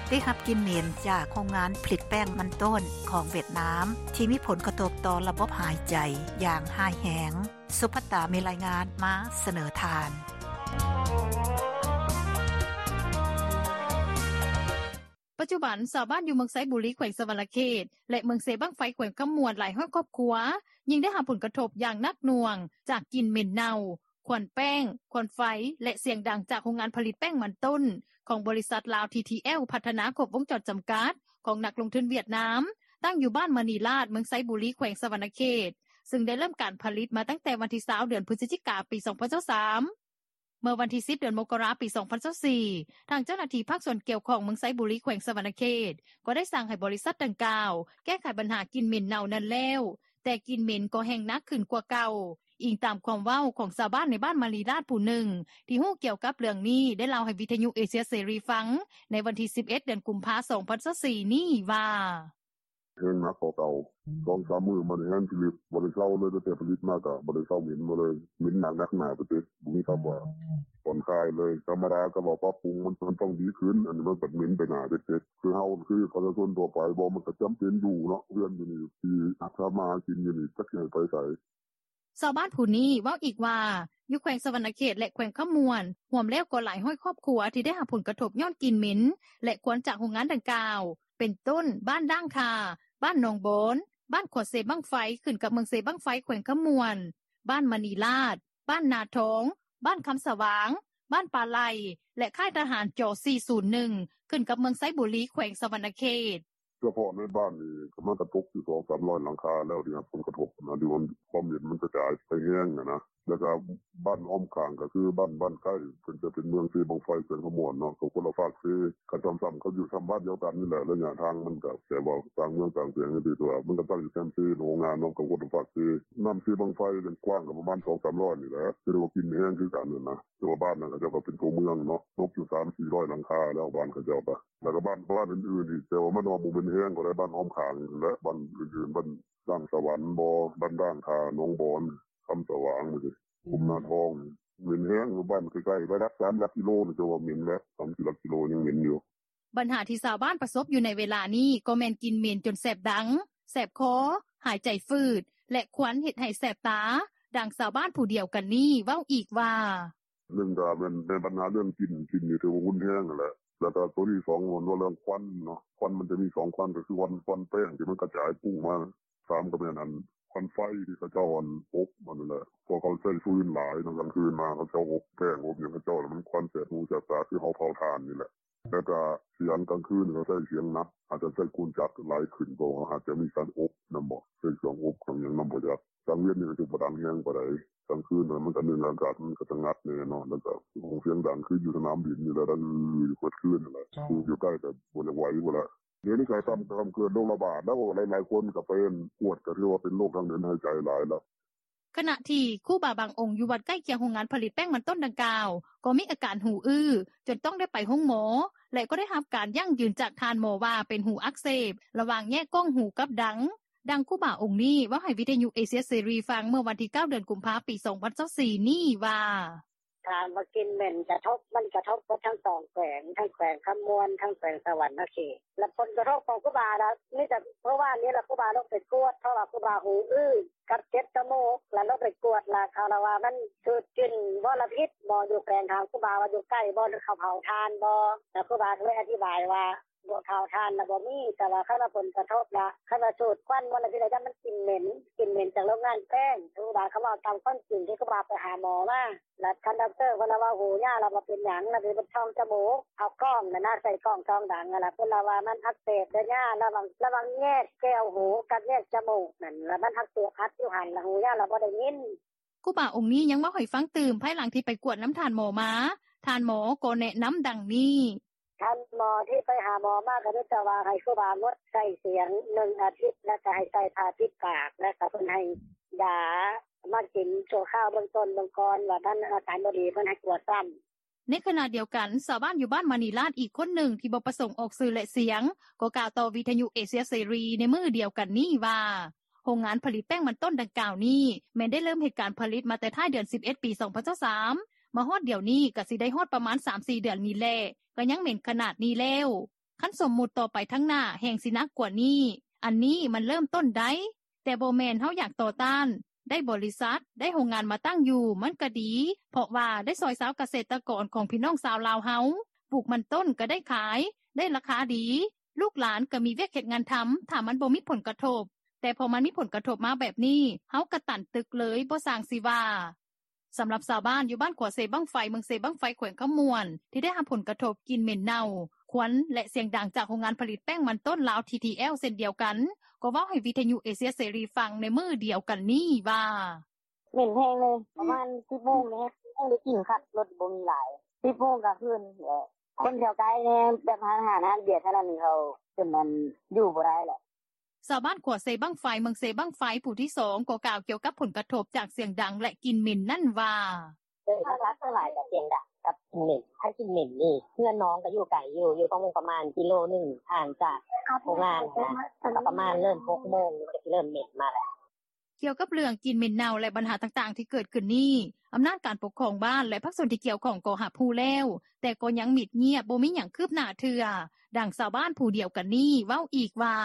ໄດ້ຮັບກິ່ນເໝັນຈາກໂຮງງານຜະລິດແປ້ງມັນຕົ້ນຂອງຫວຽດນາມ ທີ່ມີຜົນກະທົບຕໍ່ລະບົບຫາຍໃຈຢ່າງຮ້າຍແຮງ. ສຸພັດຕາມີລາຍງານມາສະເໜີທ່ານ. ປັດຈຸບັນ ຊາວບ້ານຢູ່ເມືອງໄຊບູລີ ແຂວງສະຫວັນນະເຂດ ແລະ ເມືອງເຊບັ້ງໄຟ ແຂວງຄຳມ່ວນ ຫຼາຍຮ້ອຍຄອບຄົວ ຍິ່ງໄດ້ຮັບຜົນກະທົບຢ່າງໜັກໜ່ວງ ຈາກກິ່ນເໝັນເນົ່າ, ຄວັນແປ້ງ, ຄວັນໄຟ ແລະ ສຽງດັງຈາກໂຮງງານຜະລິດແປ້ງມັນຕົ້ນ ຂອງບໍລິສັດລາວ ທີທີແອລ ພັດທະນາຄົບວົງຈອນຈຳກັດ ຂອງນັກລົງທຶນຫວຽດນາມ ຕັ້ງຢູ່ບ້ານມະນີລາດ ເມືອງໄຊບູລີ ແຂວງສະຫວັນນະເຂດ ຊຶ່ງໄດ້ເລີ່ມການຜະລິດມາຕັ້ງແຕ່ວັນທີຊາວ ເດືອນພຶສຈິກາ ປີສອງພັນຊາວສາມ. ເມື່ອວັນທີສິບ ເດືອນມົກກະລາ ປີສອງພັນຊາວສີ່ ທາງເຈົ້າໜ້າທີ່ພາກສ່ວນກ່ຽວຂ້ອງເມືອງໄຊບູລີ ແຂວງສະຫວັນນະເຂດ ກໍໄດ້ສັ່ງໃຫ້ບໍລິສັດດັ່ງກ່າວ ແກ້ໄຂບັນຫາກິ່ນເໝັນເນົ່ານັ້ນແລ້ວ, ແຕ່ກິ່ນເໝັນກໍແຮ່ງໜັກຂຶ້ນກວ່າເກົ່າ, ອີງຕາມຄວາມເວົ້າຂອງຊາວບ້ານໃນບ້ານມະນີລາດຜູ້ໜຶ່ງ ທີ່ຮູ້ກ່ຽວກັບເລື່ອງນີ້ ໄດ້ເລົ່າໃຫ້ວິທະຍຸເອເຊຍເສລີຟັງ ໃນວັນທີສິບເອັດ ເດືອນກຸມພາ ສອງພັນຊາວສີ່ນີ້ວ່າ: ແຮ່ງໜັກກວ່າເກົ່າ ສອງສາມມື້ມານີ້ແຮ່ງຜະລິດ ບໍ່ໄດ້ເຊົາເລີຍ ຕັ້ງແຕ່ຜະລິດມາກໍບໍ່ໄດ້ເຊົາ ເໝັນມາເລີຍ ເໝັນໜັກໜັກໜາໄປເຕັດ ບໍ່ມີຄຳວ່າຜ່ອນຄາຍເລີຍ. ທຳມະດາກໍວ່າປັບປຸງ ມັນ ມັນຕ້ອງດີຂຶ້ນ ອັນນີ້ມັນບັດເໝັນໄປໜາເຕັດໆ ຄືເຮົາ ຄືປະຊາຊົນທົ່ວໄປບໍ່ ມັນກໍຈຳເປັນຢູ່ເນາະ ເຮືອນຢູ່ນີ້ ທີ່ຮັກສາມາຫາກິນຢູ່ນີ້ ຈັກຊິໃຫ້ໄປໃສ. ຊາວບ້ານຜູ້ນີ້ເວົ້າອີກວ່າ ຢູ່ແຂວງສະຫວັນນະເຂດ ແລະ ແຂວງຄຳມ່ວນ ຮວມແລ້ວກໍຫຼາຍຮ້ອຍຄອບຄົວ ທີ່ໄດ້ຮັບຜົນກະທົບຍ້ອນກິ່ນເໝັນ ແລະ ຄວັນຈາກໂຮງງານດັ່ງກ່າວ ເປັນຕົ້ນ ບ້ານດ່າງຄາ, ບ້ານໜອງບອນ, ບ້ານຂົວເຊບັ້ງໄຟ ຂຶ້ນກັບເມືອງເຊບັ້ງໄຟ ແຂວງຄຳມ່ວນ, ບ້ານມະນີລາດ, ບ້ານນາທອງ, ບ້ານຄຳສະຫວ່າງ, ບ້ານປາໄຫຼ ແລະ ຄ້າຍທະຫານ ຈ ສີ່ສູນໜຶ່ງ ຂຶ້ນກັບເມືອງໄຊບູລີ ແຂວງສະຫວັນນະເຂດ. ສະເພາະໃນບ້ານນີ້ ກໍມັນກໍຕົກຢູ່ສອງສາມຮ້ອຍຫຼັງຄາແລ້ວ ທີ່ຮັບຜົນກະທົບນະ ທີ່ວ່າຄວາມເຫັນມັນກະຈາຍໄປແຮງຫັ້ນນະ. ແລ້ວກໍບ້ານອ້ອມຂ້າງ ກໍຄືບ້ານ ບ້ານໃກ້ ເພິ່ນຈະເປັນເມືອງເຊບັ້ງໄຟ ແຂວງຄຳມ່ວນເນາະ ກໍຄົນລະຟາກເຊ. ກໍຊ້ຳໆ ກໍຢູ່ຊ້ຳບ້ານດຽວກັນນີ້ແຫຼະ ໄລຍະທາງມັນກໍ ແຕ່ວ່າຕ່າງເມືອງຕ່າງແຂວງ ແຕ່ວ່າມັນກໍຕັ້ງຢູ່ແຄມເຊ ໂຮງງານເນາະ ກໍຄົນລະຟາກເຊ. ນ້ຳເຊບັ້ງໄຟນັ້ນກວ້າງກໍປະມານສອງສາມຮ້ອຍນີ້ແຫຼະ ຖືວ່າກິນແຮງຄືກັນຫັ້ນນະ. ແຕ່ວ່າບ້ານນັ້ນເຂົາເຈົ້າກໍເປັນຕົວເມືອງເນາະ ຕົກຢູ່ສາມສີ່ຮ້ອຍຫຼັງຄາແລ້ວ ບ້ານເຂົາເຈົ້າກໍ ແລ້ວກໍບ້ານ ບ້ານອື່ນໆອີກ ແຕ່ວ່າມັນວ່າບໍ່ແມ່ນແຮງ ກໍໄດ້ບ້ານອ້ອມຂ້າງຫັ້ນແຫຼະ ບ້ານອື່ນໆ ບ້ານດ່າງສະຫວັນບໍ ບ້ານດ່າງຄາ ໜອງບອນ ຄຳສະຫວ່າງ ກຸມນາທອງ ເໝັນແຮງ. ບ້ານໃກ້ໆ ໄປຫຼັກສາມຫຼັກກິໂລນີ້ ເຈົ້າວ່າເໝັນແລ້ວ ສາມສີ່ຫຼັກກິໂລຍັງເໝັນຢູ່. ບັນຫາທີ່ຊາວບ້ານປະສົບຢູ່ໃນເວລານີ້ ກໍແມ່ນກິ່ນເໝັນຈົນແສບດັງ, ແສບຄໍ, ຫາຍໃຈຝືດ ແລະ ຄວັນເຮັດໃຫ້ແສບຕາ, ດັ່ງຊາວບ້ານຜູ້ດຽວກັນນີ້ເວົ້າອີກວ່າ: ໜຶ່ງກໍແມ່ນ ແມ່ນບັນຫາເລື່ອງກິ່ນ ກິ່ນນີ້ຖືວ່າຮຸນແຮງຫັ້ນແຫຼະ ແລ້ວກໍໂຕທີສອງແມ່ນວ່າເລື່ອງຄວັນເນາະ ຄວັນມັນຈະມີສອງຄວັນ ກໍຄືຄວັນ ຄວັນແປ້ງທີ່ມັນກະຈາຍປຸ້ງມາ ສາມກໍແມ່ນອັນຄວັນໄຟທີ່ເຂົາເຈົ້າອັນອົບຫັ້ນແຫຼະ ເພາະເຂົາໃຊ້ຟືນຫຼາຍເນາະ ກາງຄືນມາເຂົາເຈົ້າອົບແປ້ງອົບຫຍັງເຂົາເຈົ້າ ແລ້ວມັນຄວັນແສບຫູແສບຕາ ຄືເຮົາເຜົາຖ່ານນີ້ແຫຼະ ແລ້ວກໍສຽງກາງຄືນເຂົາໃຊ້ສຽງໜັກ ອາດຈະໃຊ້ເຄື່ອງຈັກຫຼາຍຂຶ້ນ ເພາະວ່າອາດຈະມີການອົບນຳບໍ ໃຊ້ເຄື່ອງອົບເຄື່ອງຫຍັງນຳບໍ່ຈັກ ກາງເວັນນີ້ກໍຊິບໍ່ດັງແຮງປານໃດ ກາງຄືນມັນກໍໜຶ່ງອາກາດມັນກໍສະຫງັດແດ່ເນາະ ແລ້ວກໍສຽງດັງຄືຢູ່ສະໜາມບິນນີ້ແຫຼະ ດັງຢູ່ເບິດຄືນຫັ້ນແຫຼະ ຜູ້ຢູ່ໃກ້ກໍບໍ່ຢາກໄຫວພຸ້ນແຫຼະ ດຽວນີ້ກໍຊ້ຳ ຊ້ຳເກີດໂລກລະບາດແລ້ວ ຫຼາຍໆຄົນກໍໄປກວດ ກໍຖືວ່າເປັນໂລກທາງເດີນຫາຍໃຈຫຼາຍແລ້ວ. ຂະນະທີ່ຄູບາບາງອົງຢູ່ວັດໃກ້ຄຽງໂຮງງານຜະລິດແປ້ງມັນຕົ້ນດັ່ງກ່າວ ກໍມີອາການຫູອື້ ຈົນຕ້ອງໄດ້ໄປໂຮງໝໍ ແລະກໍໄດ້ຮັບການຢັ້ງຢືນຈາກທ່ານໝໍວ່າເປັນຫູອັກເສບ ລະຫວ່າງແຍກກ້ອງຫູກັບດັງ. ດັ່ງຄູບາອົງນີ້ເວົ້າໃຫ້ວິທະຍຸເອເຊຍເສລີຟັງເມື່ອວັນທີເກົ້າ ເດືອນກຸມພາ ປີສອງພັນຊາວສີ່ນີ້ວ່າ: ຖາມວ່າກິ່ນເໝັນກະທົບ ມັນກະທົບເບິດທັງສອງແຂວງ ທັງແຂວງຄຳມ່ວນ ທັງແຂວງສະຫວັນນະເຂດ ແລະຜົນກະທົບຂອງຄູບາລະມີແຕ່ມື້ວານນີ້ລະ ຄູບາລົງໄປກວດ ເພາະວ່າຄູບາຫູອື້ກັບເຈັບຈະມູກ ລະລົງໄປກວດລະເຂົາລະວ່າມັນສູດກິ່ນມົນລະພິດ ໝໍຢູ່ແຂວງຖາມຄູບາວ່າຢູ່ໃກ້ບໍ່ ເຂົາເຜົາຖ່ານບໍ່ ລະຄູບາກໍເລີຍອະທິບາຍວ່າ ບໍ່ເຜົາຖ່ານລະບໍ່ມີ ແຕ່ວ່າຄັນວ່າຜົນກະທົບລະ ຄັນວ່າສູດຄວັນມົນລະພິດລະ ຢ້ານມັນກິ່ນເໝັນ ກິ່ນເໝັນຈາກໂຮງງານແປ້ງ ຄູບາກໍເວົ້າຕາມຄວາມຈິງທີ່ຄູບາໄປຫາໝໍມາ ລະທ່ານດັອກເຕີເພິ່ນລະວ່າຫູຍາລະບໍ່ເປັນຫຍັງ ລະໄປເບິ່ງຊ່ອງຈະມູກ ເອົາກ້ອງຫັ້ນນະ ໃສ່ກ້ອງສ່ອງດັງຫັ້ນລະ ເພິ່ນລະວ່າມັນອັກເສບເດີຍາ ລະວັງ ລະຫວ່າງແຍກແກ້ວຫູກັບແຍກຈະມູກຫັ້ນ ລະມັນອັກເສບອັດຢູ່ຫັ້ນ ລະຫູຍາລະບໍ່ໄດ້ຍິນ. ຄູບາອົງນີ້ຍັງເວົ້າໃຫ້ຟັງຕື່ມ ພາຍຫຼັງທີ່ໄປກວດນຳທ່ານໝໍມາ ທ່ານໝໍກໍແນະນຳດັ່ງນີ້: ທ່ານໝໍທີ່ໄປຫາໝໍມາກໍມີແຕ່ວ່າໃຫ້ຄູບາງົດໃຊ້ສຽງໜຶ່ງອາທິດ ແລະກໍໃຫ້ໃສ່ຜ້າປິດປາກ ແລະກໍເພິ່ນໃຫ້ຢາມາກິນຊົ່ວຄາວເບື້ອງຕົ້ນເບື້ອງກ່ອນ ວ່າທ່ານອາການບໍ່ດີເພິ່ນໃຫ້ກວດຊ້ຳ. ໃນຂະນະດຽວກັນ ຊາວບ້ານຢູ່ບ້ານມະນີລາດອີກຄົນໜຶ່ງທີ່ບໍ່ປະສົງອອກຊື່ ແລະ ສຽງ ກໍກ່າວຕໍ່ວິທະຍຸເອເຊຍເສລີໃນມື້ດຽວກັນນີ້ວ່າ ໂຮງງານຜະລິດແປ້ງມັນຕົ້ນດັ່ງກ່າວນີ້ ແມ່ນໄດ້ເລີ່ມເຮັດການຜະລິດມາແຕ່ທ້າຍເດືອນສິບເອັດ ປີສອງພັນຊາວສາມ ມາຮອດດຽວນີ້ກໍຊິໄດ້ຮອດປະມານສາມສີ່ເດືອນນີ້ແຫຼະ ກໍຍັງເໝັນຂະໜາດນີ້ແລ້ວ ຄັນສົມມຸດຕໍ່ໄປທາງໜ້າແຮ່ງຊິໜັກກວ່ານີ້ ອັນນີ້ມັນເລີ່ມຕົ້ນໄດ້ ແຕ່ບໍ່ແມ່ນເຮົາຢາກຕໍ່ຕ້ານ ໄດ້ບໍລິສັດ ໄດ້ໂຮງງານມາຕັ້ງຢູ່ ມັນກະດີ ເພາະວ່າໄດ້ຊ່ອຍຊາວກະເສດຕະກອນຂອງພີ່ນ້ອງຊາວລາວເຮົາ ປູກມັນຕົ້ນກະໄດ້ຂາຍ ໄດ້ລາຄາດີ ລູກຫຼານກະມີວຽກເຮັດງານທຳ ຖ້າມັນບໍ່ມີຜົນກະທົບ ແຕ່ພໍມັນມີຜົນກະທົບມາແບບນີ້ ເຮົາກະຕັນຕຶກເລີຍ ບໍ່ຊ່າງຊິວ່າ. ສຳລັບຊາວບ້ານຢູ່ບ້ານຂົວເຊບັ້ງໄຟ ເມືອງເຊບັ້ງໄຟ ແຂວງຄຳມ່ວນ ທີ່ໄດ້ຮັບຜົນກະທົບກິ່ນເໝັນເນົ່າ, ຄວັນ ແລະ ສຽງດັງຈາກໂຮງງານຜະລິດແປ້ງມັນຕົ້ນລາວ ທີທີແອລ ເຊັ່ນດຽວກັນ ກໍເວົ້າໃຫ້ວິທະຍຸເອເຊຍເສລີຟັງໃນມື້ດຽວກັນນີ້ວ່າ: ເໝັນແຮງເລີຍ ປະມານສິບໂມງນີ້ແຮງໄດ້ກິ່ນຄັກ ລົດບໍ່ມີຫຼາຍ ສິບໂມງກາງຄືນແຫຼະ ຄົນແຖວໃກ້ແດ່ ແບບຮ້ານອາຫານ ຮ້ານເບຍເທົ່ານັ້ນ ເຂົາຈົນນັ້ນຢູ່ບໍ່ໄດ້ແຫຼະ. ຊາວບ້ານຂົວເຊບັ້ງໄຟ ເມືອງເຊບັ້ງໄຟ ຜູ້ທີສອງ ກໍກ່າວກ່ຽວກັບຜົນກະທົບຈາກສຽງດັງ ແລະ ກິ່ນເໝັນນັ້ນວ່າ: ເອີ ຫຼັກໆສ່ວນຫຼາຍກໍສຽງດັງກັບກິ່ນເໝັນ ຄັນກິ່ນເໝັນນີ້ ເຮືອນນ້ອງກໍຢູ່ໄກຢູ່ ຢູ່ປະມານ ປະມານກິໂລໜຶ່ງ ຫ່າງຈາກໂຮງງານຫັ້ນນະ ກໍປະມານເລີ່ມຫົກໂມງ ມັນກໍຊິເລີ່ມເໝັນມາແລ້ວ. ກ່ຽວກັບເລື່ອງກິ່ນເໝັນເນົ່າ ແລະ ບັນຫາຕ່າງໆທີ່ເກີດຂຶ້ນນີ້ ອຳນາດການປົກຄອງບ້ານ ແລະ ພາກສ່ວນທີ່ກ່ຽວຂ້ອງກໍຮັບຮູ້ແລ້ວ ແຕ່ກໍຍັງມິດງຽບ ບໍ່ມີຫຍັງຄືບໜ້າເທື່ອ. ດັ່ງຊາວບ້ານຜູ້ດຽວກັນນີ້ເວົ້າອີກວ່າ: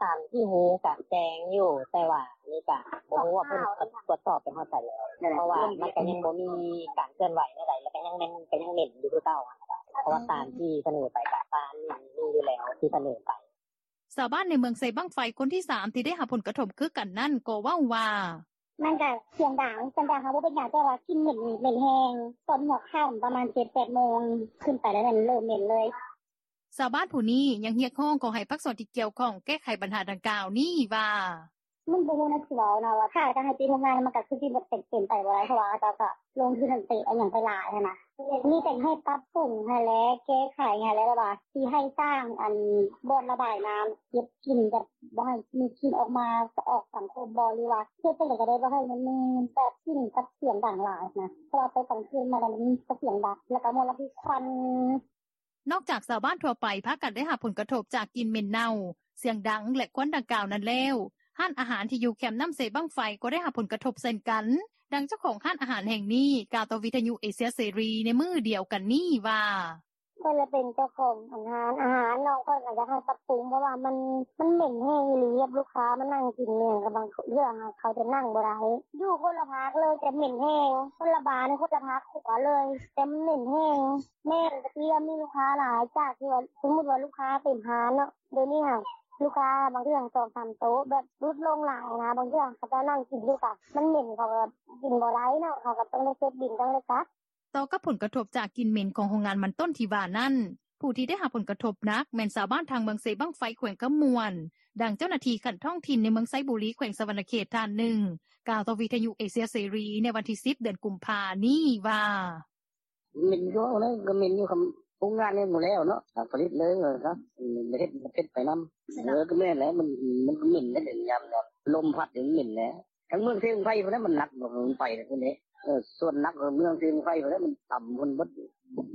ຕາມທີ່ຮູ້ກະແຈ້ງຢູ່ ແຕ່ວ່າອັນນີ້ກະບໍ່ຮູ້ວ່າເພິ່ນກະກວດສອບໄປຮອດໃສແລ້ວ ເພາະວ່າມັນກະຍັງບໍ່ມີການເຄື່ອນໄຫວແນວໃດ ແລ້ວກະຍັງແມ່ນ ກະຍັງເໝັນຢູ່ຄືເກົ່າ ເພາະວ່າຕາມທີ່ສະເໜີໄປກະຕາມນີ້ມີຢູ່ແລ້ວທີ່ສະເໜີໄປ. ຊາວບ້ານໃນເມືອງເຊບັ້ງໄຟຄົນທີສາມທີ່ໄດ້ຮັບຜົນກະທົບຄືກັນນັ້ນກໍເວົ້າວ່າ: ມັນກະສຽງດັງ ສຽງດັງເຮົາບໍ່ເປັນຫຍັງ ແຕ່ວ່າກິ່ນເໝັນນີ້ເໝັນແຮງ ຕອນຫົວຄ່ຳປະມານເຈັດແປດໂມງຂຶ້ນໄປແລ້ວແມ່ນເລີ່ມເໝັນເລີຍ. ຊາວບ້ານຜູ້ນີ້ຍັງຮຽກຮ້ອງຂໍໃຫ້ພາກສ່ວນທີ່ກ່ຽວຂ້ອງແກ້ໄຂບັນຫາດັ່ງກ່າວນີ້ວ່າ: ມັນບໍ່ຮູ້ແນວຊິເວົ້ານະ ວ່າຖ້າຈະໃຫ້ປິດໂຮງງານ ມັນກະຄືຊິເປັນໄປບໍ່ໄດ້ ເພາະວ່າເຂົາເຈົ້າກະລົງທຶນເຕະອີ່ຫຍັງໄປຫຼາຍຫັ້ນນະ ມີແຕ່ໃຫ້ປັບປຸງຫັ້ນແຫຼະ ແກ້ໄຂຫັ້ນແຫຼະ ແລ້ວວ່າຊິໃຫ້ສ້າງອັນບ່ອນລະບາຍນ້ຳ ເກັບກິ່ນ ແບບບໍ່ໃຫ້ມີກິ່ນອອກມາ ອອກສັງຄົມບໍ່ ຫຼືວ່າເຮັດຈັ່ງໃດກະໄດ້ ບໍ່ໃຫ້ມັນມີແບບກິ່ນກັບສຽງດັງຫຼາຍນະ ເພາະວ່າໄປກາງຄືນມາແລ້ວມັນກະສຽງດັງ ແລ້ວກະມົນລະພິດຄວັນ. ນອກຈາກຊາວບ້ານທົ່ວໄປພາກັນໄດ້ຮັບຜົນກະທົບຈາກກິ່ນເໝັນເນົ່າ, ສຽງດັງ ແລະ ຄວັນດັ່ງກ່າວນັ້ນແລ້ວ, ຮ້ານອາຫານທີ່ຢູ່ແຄມນ້ຳເຊບັ້ງໄຟກໍໄດ້ຮັບຜົນກະທົບເຊັ່ນກັນ. ດັ່ງເຈົ້າຂອງຮ້ານອາຫານແຫ່ງນີ້ກ່າວຕໍ່ວິທະຍຸເອເຊຍເສລີໃນມື້ດຽວກັນນີ້ວ່າ: ຂ້ອຍລະເປັນເຈົ້າຂອງຮ້ານອາຫານເນາະ ຂ້ອຍກະຢາກໃຫ້ປັບປຸງ ເພາະວ່າມັນ ມັນເໝັນແຮງອີ່ຫຼີ ລູກຄ້າມານັ່ງກິນແມ່ນ ບາງເທື່ອເຂົາຈະນັ່ງບໍ່ໄດ້ ຢູ່ຄົນລະພາກເລີຍ ແຕ່ເໝັນແຮງ ຄົນລະບ້ານ ຄົນລະພາກຄົວເລີຍ ແຕ່ມັນເໝັນແຮງ. ແມ່ນ ແຕ່ກີ້ມີລູກຄ້າຫຼາຍ ຈາກທີ່ວ່າ ສົມມຸດວ່າລູກຄ້າເຕັມຮ້ານເນາະ ດຽວນີ້ຫັ້ນ ລູກຄ້າບາງເທື່ອສອງສາມໂຕະ ແບບຫຼຸດລົງຫຼາຍຫັ້ນນະ ບາງເທື່ອເຂົາເຈົ້ານັ່ງກິນຢູ່ກະ ມັນເໝັນ ເຂົາກະກິນບໍ່ໄດ້ເນາະ ເຂົາກະຕ້ອງໄດ້ເກັບບິນ ຕ້ອງໄດ້ກັບ. ຕໍ່ກັບຜົນກະທົບຈາກກິ່ນເໝັນຂອງໂຮງງານມັນຕົ້ນທີ່ວ່ານັ້ນ, ຜູ້ທີ່ໄດ້ຮັບຜົນກະທົບໜັກແມ່ນຊາວບ້ານທາງເມືອງເຊບັ້ງໄຟ ແຂວງຄຳມ່ວນ, ດັ່ງເຈົ້າໜ້າທີ່ຂັ້ນທ້ອງຖິ່ນໃນເມືອງໄຊບູລີ ແຂວງສະຫວັນນະເຂດທ່ານໜຶ່ງ ກ່າວຕໍ່ວິທະຍຸເອເຊຍເສລີໃນວັນທີສິບ ເດືອນກຸມພານີ້ວ່າ: ເໝັນຢູ່ ເອົາແລ້ວກະເໝັນຢູ່ ໂຮງງານຍັງບໍ່ແລ້ວເນາະ ຜະລິດເລີຍວ່າຊັ້ນ ເຮັດ ເຮັດໄປນຳ ເອີ ກະແມ່ນແຫຼະ ມັນ ມັນກະເໝັນແຫຼະ ຍາມ ຍາມລົມພັດນີ້ມັນເໝັນແຫຼະ. ທາງເມືອງເຊບັ້ງໄຟພຸ້ນແຫຼະ ມັນໜັກ ມັນໄປພຸ້ນເດ້ ເອີ ສ່ວນໜັກເມືອງເຊບັ້ງໄຟພຸ້ນແຫຼະ ມັນຕ່ຳພຸ້ນເບິດ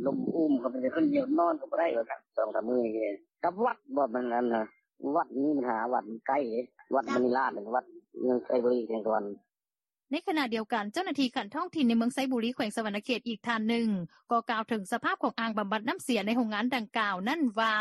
ລົມອຸມເຂົ້າໄປ ຄົນດຽວນອນກະບໍ່ໄດ້ວ່າຊັ້ນ ສອງສາມມື້ນີ້ ກັບວັດບໍ່ ມັນອັນນະ ວັດມີບັນຫາ ວັດມັນໄກເດ້ ວັດມະນີລາດ ວັດເມືອງໄຊບູລີ ແຂວງສະຫວັນ. ໃນຂະນະດຽວກັນ ເຈົ້າໜ້າທີ່ຂັ້ນທ້ອງຖິ່ນໃນເມືອງໄຊບູລີ ແຂວງສະຫວັນນະເຂດອີກທ່ານໜຶ່ງ ກໍກ່າວເຖິງສະພາບຂອງອ່າງບຳບັດນ້ຳເສຍໃນໂຮງງານດັ່ງກ່າວນັ້ນວ່າ: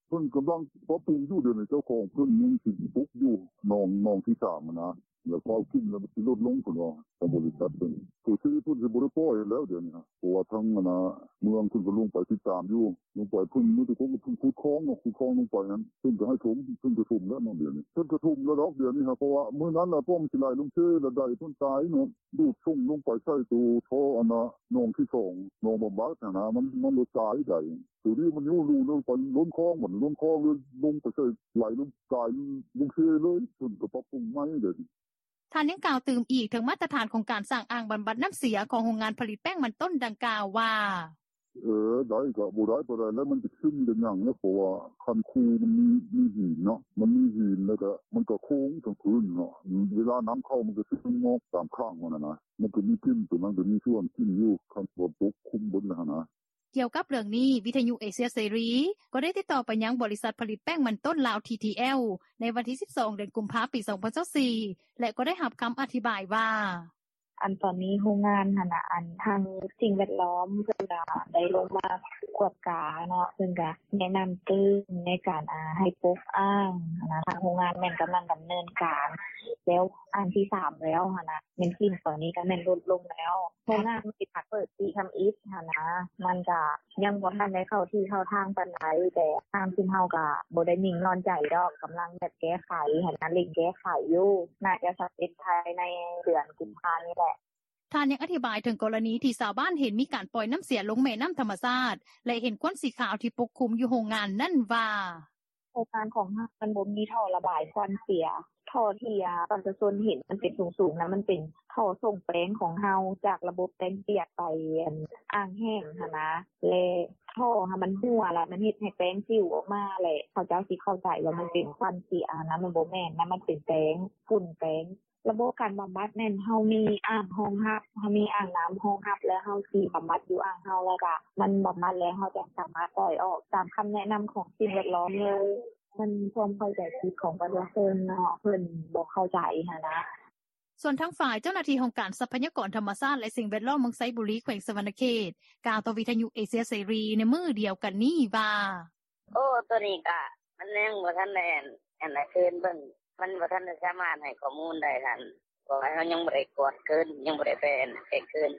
ເພິ່ນກຳລັງປັບປຸງຢູ່ ດຽວນີ້ເຈົ້າຂອງເພິ່ນຍັງຊິປຸກຢູ່ ໜອງ ໜອງທີສາມຫັ້ນນະ ແລ້ວເຂົ້າກິນແລ້ວມັນຊິຫຼຸດລົງເພິ່ນວ່າ ທາງບໍລິສັດເພິ່ນ ໂຕຊີເພິ່ນຊິບໍ່ໄດ້ປ່ອຍແລ້ວດຽວນີ້ ເພາະວ່າທາງອັນນະ ເມືອງເພິ່ນກະລົງໄປຕິດຕາມຢູ່ ລົງໄປເພິ່ນມີແຕ່ຄົນຂຸດຄອງເນາະ ຂຸດຄອງລົງໄປຫັ້ນ ເພິ່ນກະໃຫ້ຖົມ ເພິ່ນກະຖົມແລ້ວເນາະ ດຽວນີ້ເພິ່ນກະຖົມແລ້ວດອກ ດຽວນີ້ຫັ້ນ ເພາະວ່າມື້ນັ້ນລະ ປ້ອມຊິໄຫຼລົງເຊລະໄດເພິ່ນຕາຍເນາະ ດູດສົ່ງລົງໄປໃສ່ໂຕທໍ່ອັນນະ ໜອງທີສອງ ໜອງບຳບັດຫັ້ນນະ ມັນ ມັນລະຕາຍໄດ ໂຕນີ້ມັນຢູ່ ຢູ່ລົງໄປລົ້ນຄອງ ມັນລົ້ນຄອງເລີຍລົງໄປໃສ່ ໄຫຼລົງ ກາຍລົງເຊເລີຍ ເພິ່ນກະປັບປຸງໃໝ່ເດ. ທ່ານຍັງກ່າວຕື່ມອີກເຖິງມາດຕະຖານຂອງການສ້າງອ່າງບຳບັດນ້ຳເສຍຂອງໂຮງງານຜະລິດແປ້ງມັນຕົ້ນດັ່ງກ່າວວ່າ: ເອີ ໄດ້ກະບໍ່ໄດ້ປານໃດແລ້ວ ມັນກະຊຶມກະຫຍັງແລ້ວ ເພາະວ່າຄັນຄູມັນມີ ມີຫີນເນາະ ມັນມີຫີນແລ້ວກະ ມັນກະໂຄ້ງທາງພື້ນເນາະ ເວລານ້ຳເຂົ້າມັນກະຊຶມອອກຕາມຂ້າງຫັ້ນນະ ມັນກະມີກິ່ນ ໂຕນັ້ນກະມີສ່ວນກິ່ນຢູ່ ຄັນຝົນຕົກຄຸມເບິດແລ້ວຫັ້ນນະ. ກ່ຽວກັບເລື່ອງນີ້ ວິທະຍຸເອເຊຍເສລີ ກໍໄດ້ຕິດຕໍ່ໄປຍັງບໍລິສັດຜະລິດແປ້ງມັນຕົ້ນລາວ ທີທີແອລ ໃນວັນທີສິບສອງ ເດືອນກຸມພາ ປີສອງພັນຊາວສີ່ ແລະ ກໍໄດ້ຮັບຄຳອະທິບາຍວ່າ: ອັນຕອນນີ້ໂຮງງານຫັ້ນນະ ອັນທາງສິ່ງແວດລ້ອມເພິ່ນກະໄດ້ລົງມາກວດກາເນາະ ເພິ່ນກະແນະນຳຕື່ມໃນການ ອາ ໃຫ້ປົກອ່າງຫັ້ນນະ ທາງໂຮງງານແມ່ນກຳລັງດຳເນີນການ ແລ້ວອ່າງທີສາມແລ້ວຫັ້ນນະ ແມ່ນກິ່ນຕອນນີ້ກະແມ່ນຫຼຸດລົງແລ້ວ ໂຮງງານມັນຊິມາເປີດປີທຳອິດຫັ້ນນະ ມັນກະຍັງບໍ່ທັນໄດ້ເຂົ້າທີ່ເຂົ້າທາງປານໃດ ແຕ່ທາງຊຸມເຮົາກະບໍ່ໄດ້ນິ່ງນອນໃຈດອກ ກຳລັງແບບແກ້ໄຂຫັ້ນນະ ເລັ່ງແກ້ໄຂຢູ່ ໜ້າຈະສຳເລັດພາຍໃນເດືອນກຸມພານີ້ແຫຼະ. ທ່ານຍັງອະທິບາຍເຖິງກໍລະນີທີ່ຊາວບ້ານເຫັນມີການປ່ອຍນ້ຳເສຍລົງແມ່ນ້ຳທຳມະຊາດ ແລະ ເຫັນຄວັນສີຂາວທີ່ປົກຄຸມຢູ່ໂຮງງານນັ້ນວ່າ: ໂຮງງານຂອງເຮົາມັນບໍ່ມີທໍ່ລະບາຍຄວັນເສຍ ທໍ່ທີ່ປະຊາຊົນເຫັນມັນເປັນສູງໆນະ ມັນເປັນທໍ່ສົ່ງແປ້ງຂອງເຮົາ ຈາກລະບົບແປ້ງປຽກໄປອ່າງແຫ້ງຫັ້ນນະ ແລະ ທໍ່ຫັ້ນມັນຮົ່ວ ລະມັນເຮັດໃຫ້ແປ້ງປິວອອກມາ ແລະ ເຂົາເຈົ້າຊິເຂົ້າໃຈວ່າມັນເປັນຄວັນເສຍຫັ້ນນະ ມັນບໍ່ແມ່ນນະ ມັນເປັນແປ້ງ ຝຸ່ນແປ້ງ. ລະບົບການບຳບັດແມ່ນເຮົາມີອ່າງຮອງຮັບ ເຮົາມີອ່າງນ້ຳຮອງຮັບ ແລ້ວເຮົາຊິບຳບັດຢູ່ອ່າງເຮົາ ແລ້ວກະມັນບຳບັດແລ້ວ ເຮົາຈະສາມາດປ່ອຍອອກຕາມຄຳແນະນຳຂອງສິ່ງແວດລ້ອມເລີຍ ມັນຄວາມເຂົ້າໃຈຜິດຂອງປະຊາຊົນເນາະ ເພິ່ນບໍ່ເຂົ້າໃຈຫັ້ນນະ. ສ່ວນທາງຝ່າຍເຈົ້າໜ້າທີ່ຫ້ອງການຊັບພະຍາກອນທຳມະຊາດ ແລະ ສິ່ງແວດລ້ອມເມືອງໄຊບູລີ ແຂວງສະຫວັນນະເຂດ ກ່າວຕໍ່ວິທະຍຸເອເຊຍເສລີໃນມື້ດຽວກັນນີ້ວ່າ: ໂອ້ ໂຕນີ້ກະມັນຍັງບໍ່ທັນໄດ້ອັນ ອັນຄືນເບິ່ງ ມັນບໍ່ທັນໄດ້ສາມາດໃຫ້ຂໍ້ມູນໄດ້ຫັ້ນ ເພາະວ່າເຮົາຍັງບໍ່ໄດ້ກວດຄືນ ຍັງບໍ່ໄດ້ໄປອັນແຈ້ງຄືນ.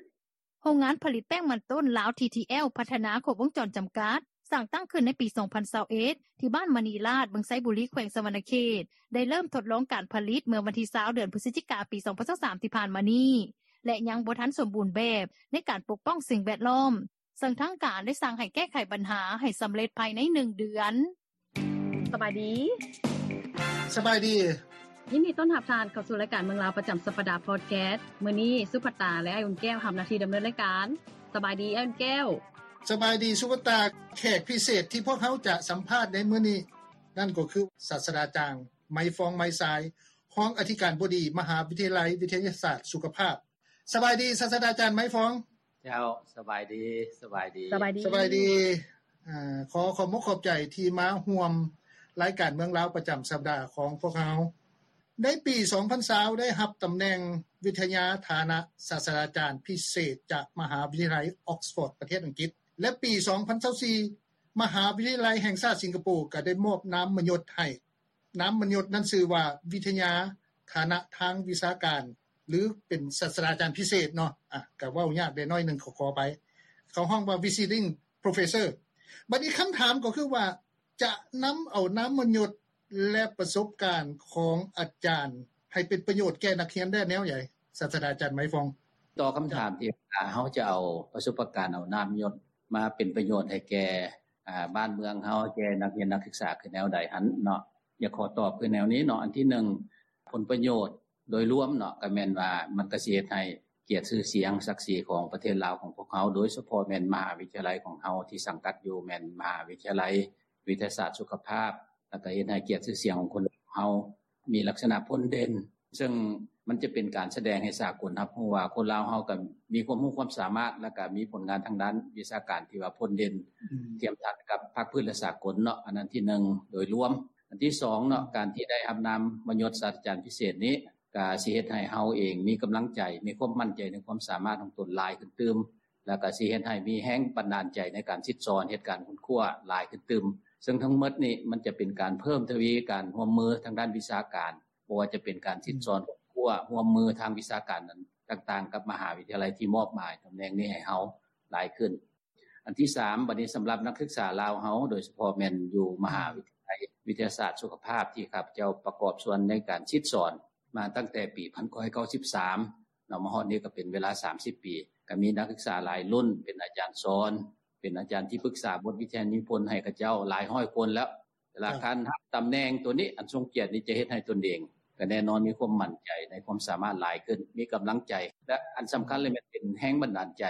ໂຮງງານຜະລິດແປ້ງມັນຕົ້ນລາວ ທີທີແອລ ພັດທະນາຄົບວົງຈອນຈຳກັດ ສ້າງຕັ້ງຂຶ້ນໃນປີສອງພັນຊາວເອັດ ທີ່ບ້ານມະນີລາດ ເມືອງໄຊບູລີ ແຂວງສະຫວັນນະເຂດ ໄດ້ເລີ່ມທົດລອງການຜະລິດເມື່ອວັນທີຊາວ ເດືອນພຶສຈິກາ ປີສອງພັນຊາວສາມ ທີ່ຜ່ານມານີ້ ແລະ ຍັງບໍ່ທັນສົມບູນແບບໃນການປົກປ້ອງສິ່ງແວດລ້ອມ ເຊິ່ງທາງການໄດ້ສັ່ງໃຫ້ແກ້ໄຂບັນຫາໃຫ້ສຳເລັດພາຍໃນໜຶ່ງເດືອນ. ສະບາຍດີ. ສະບາຍດີ. ຍິນດີຕ້ອນຮັບທ່ານເຂົ້າສູ່ລາຍການເມືອງລາວປະຈຳສັບປະດາພອດແຄສ. ມື້ນີ້ສຸພັດຕາ ແລະ ອ້າຍອຸ່ນແກ້ວຮັບໜ້າທີ່ດຳເນີນລາຍການ. ສະບາຍດີອ້າຍອຸ່ນແກ້ວ. ສະບາຍດີສຸພັດຕາ. ແຂກພິເສດທີ່ພວກເຮົາຈະສຳພາດໃນມື້ນີ້ ນັ້ນກໍຄື ສາດສະດາຈານ ໄມຟອງ ໄມຊາຍ ຮອງອະທິການບໍດີ ມະຫາວິທະຍາໄລວິທະຍາສາດສຸຂະພາບ. ສະບາຍດີສາດສະດາຈານ ໄມຟອງ. ເຈົ້າ ສະບາຍດີ ສະບາຍດີ ສະບາຍດີ ສະບາຍດີ. ອາ ຂໍຂອບມຸກຂອບໃຈທີ່ມາຮ່ວມລາຍການເມືອງລາວປະຈຳສັບປະດາຂອງພວກເຮົາ. ໃນປີສອງພັນຊາວ ໄດ້ຮັບຕຳແໜ່ງວິທະຍາຖານະສາດສະດາຈານພິເສດຈາກມະຫາວິທະຍາໄລອອກສະຟອດ ປະເທດອັງກິດ. ແລະ ປີ ສອງພັນຊາວສີ່ ມະຫາວິທະຍາໄລແຫ່ງຊາດສິງກະໂປ ກໍໄດ້ມອບນາມມະຍົດໃຫ້. ນາມມະຍົດນັ້ນຊື່ວ່າ ວິທະຍາຖານະທາງວິຊາການ ຫຼື ເປັນສາດສະດາຈານພິເສດເນາະ. ອາ ກໍເວົ້າຍາກແດ່ໜ້ອຍໜຶ່ງ ຂໍ ຂໍອະໄພ. ເຂົາຮ້ອງວ່າ Visiting Professor. ບັດນີ້ຄຳຖາມກໍຄືວ່າ ຈະນຳເອົານາມມະຍົດ ແລະ ປະສົບການຂອງອາຈານ ໃຫ້ເປັນປະໂຫຍດແກ່ນັກຮຽນໄດ້ແນວໃດ ສາດສະດາຈານໄມຟອງ? ຕໍ່ຄຳຖາມທີ່ວ່າ ເຮົາຈະເອົາປະສົບປະການ ເອົານາມມະຍົດມາເປັນປະໂຫຍດໃຫ້ແກ່ ອາ ບ້ານເມືອງເຮົາ ແກ່ນັກຮຽນນັກສຶກສາຄືແນວໃດຫັ້ນເນາະ, ຢາກຂໍຕອບຄືແນວນີ້ເນາະ. ອັນທີໜຶ່ງ ຜົນປະໂຫຍດໂດຍລວມເນາະ ກໍແມ່ນວ່າມັນກໍຊິເຮັດໃຫ້ກຽດຊື່ສຽງສັກສີຂອງປະເທດລາວຂອງພວກເຮົາ, ໂດຍສະເພາະແມ່ນມະຫາວິທະຍາໄລຂອງເຮົາທີ່ສັງກັດຢູ່ ແມ່ນມະຫາວິທະຍາໄລວິທະຍາສາດສຸຂະພາບ, ແລ້ວກໍເຮັດໃຫ້ກຽດຊື່ສຽງຂອງຄົນເຮົາມີລັກສະນະພົ້ນເດັ່ນ. ເຊິ່ງມັນຈະເປັນການສະແດງໃຫ້ສາກົນຮັບຮູ້ວ່າ ຄົນລາວເຮົາກໍມີຄວາມຮູ້ຄວາມສາມາດ ແລ້ວກໍມີຜົນງານທາງດ້ານວິຊາການທີ່ວ່າພົ້ນເດັ່ນ ອືມ ທຽບທັນກັບພາກພື້ນ ແລະ ສາກົນເນາະ. ອັນນັ້ນທີໜຶ່ງໂດຍລວມ. ອັນທີສອງເນາະ ການທີ່ໄດ້ຮັບນາມມະຍົດສາດສະດາຈານພິເສດນີ້ ກໍຊິເຮັດໃຫ້ເຮົາເອງມີກຳລັງໃຈ ມີຄວາມໝັ້ນໃຈໃນຄວາມສາມາດຂອງຕົນຫຼາຍຂຶ້ນຕື່ມ, ແລ້ວກໍຊິເຮັດໃຫ້ມີແຮງບັນດານໃຈໃນການສິດສອນ ເຮັດການຄົ້ນຄວ້າຫຼາຍຂຶ້ນຕື່ມ. ເຊິ່ງທັງໝົດນີ້ມັນຈະເປັນການເພີ່ມທະວີການຮ່ວມມືທາງດ້ານວິຊາການ, ບໍ່ວ່າຈະເປັນການສິດສອນ ອືມ ຄົ້ນຄວ້າຮ່ວມມືທາງວິຊາການນັ້ນຕ່າງໆ ກັບມະຫາວິທະຍາໄລທີ່ມອບໝາຍຕຳແໜ່ງນີ້ໃຫ້ເຮົາຫຼາຍຂຶ້ນ. ອັນທີສາມ ບັດນີ້ສຳລັບນັກສຶກສາລາວເຮົາ ໂດຍສະເພາະແມ່ນຢູ່ມະຫາວິທະຍາໄລ ອືມ ວິທະຍາສາດສຸຂະພາບ ທີ່ຂ້າພະເຈົ້າປະກອບສ່ວນໃນການສິດສອນມາຕັ້ງແຕ່ປີພັນເກົ້າຮ້ອຍເກົ້າສິບສາມເນາະ ມາຮອດນີ້ກໍເປັນເວລາສາມສິບປີ, ກໍມີນັກສຶກສາຫຼາຍລຸ້ນເປັນອາຈານສອນ, ເປັນອາຈານທີ່ປຶກສາບົດວິທະຍານິພົນໃຫ້ເຂົາເຈົ້າຫຼາຍຮ້ອຍຄົນແລ້ວ. ເວລາ ຄັບ ທ່ານຮັບຕຳແໜ່ງໂຕນີ້ ອັນຊົງກຽດນີ້ ຈະເຮັດໃຫ້ຕົນເອງກໍແນ່ນອນມີຄວາມໝັ້ນໃຈໃນຄວາມສາມາດຫຼາຍຂຶ້ນ, ມີກຳລັງໃຈ ແລະ ອັນສຳຄັນເລີຍແມ່ນເປັນແຮງບັນດານໃຈ,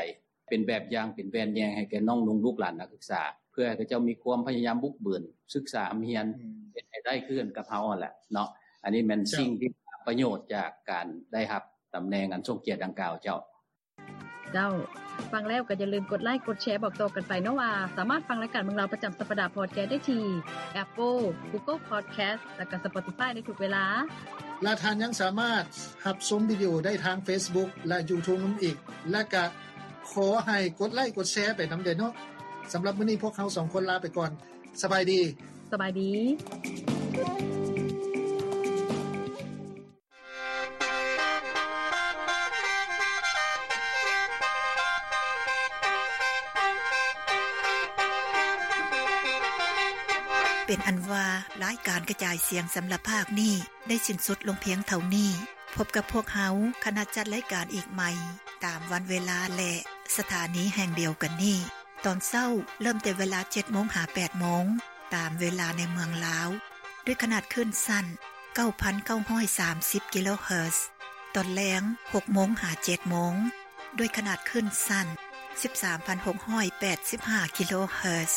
ເປັນແບບຢ່າງ ເປັນແວ່ນແຍງໃຫ້ແກ່ນ້ອງນຸ່ງລູກຫຼານນັກສຶກສາ ເພື່ອໃຫ້ເຂົາເຈົ້າມີຄວາມພະຍາຍາມບຸກບືນ ສຶກສາຮ່ຳຮຽນ ອືມ ເຮັດໃຫ້ໄດ້ຄືກັນກັບເຮົາຫັ້ນແຫຼະເນາະ. ອັນນີ້ແມ່ນ ເຈົ້າ ສິ່ງທີ່ປະໂຫຍດຈາກການໄດ້ຮັບຕຳແໜ່ງອັນຊົງກຽດດັ່ງກ່າວ ເຈົ້າ. ເຈົ້າ, ຟັງແລ້ວກໍຢ່າລືມກົດໄລກົດແຊບອກຕໍ່ກັນໄປເນາະວ່າ ສາມາດຟັງລາຍການເມືອງລາວປະຈຳສັບປະດາພອດແຄສໄດ້ທີ່ Apple, Google Podcast ແລະກໍ Spotify ໃນທຸກເວລາ. ແລະທ່ານຍັງສາມາດຮັບຊົມວິດີໂອໄດ້ທາງ Facebook ແລະ YouTube ນຳອີກ. ແລະກະຂໍໃຫ້ກົດໄລກົດແຊໄປນຳແດ່ເນາະ. ສຳລັບມື້ນີ້ພວກເຮົາສອງຄົນລາໄປກ່ອນ. ສະບາຍດີ. ສະບາຍດີ. ເປັນອັນວ່າ ລາຍການກະຈາຍສຽງສຳລັບພາກນີ້ ໄດ້ສິ້ນສຸດລົງພຽງເທົ່ານີ້. ພົບກັບພວກເຮົາ ຄະນະຈັດລາຍການອີກໃໝ່ ຕາມວັນເວລາ ແລະ ສະຖານີແຫ່ງດຽວກັນນີ້. ຕອນເຊົ້າເລີ່ມແຕ່ເວລາເຈັດໂມງຫາແປດໂມງ ຕາມເວລາໃນເມືອງລາວ ດ້ວຍຂະໜາດຄື້ນສັ້ນ ເກົ້າພັນເກົ້າຮ້ອຍສາມສິບ ກິໂລເຮີດ, ຕອນແລງ ຫົກໂມງຫາເຈັດໂມງ ດ້ວຍຂະໜາດຄື້ນສັ້ນ ສິບສາມພັນຫົກຮ້ອຍແປດສິບຫ້າ ກິໂລເຮີດ.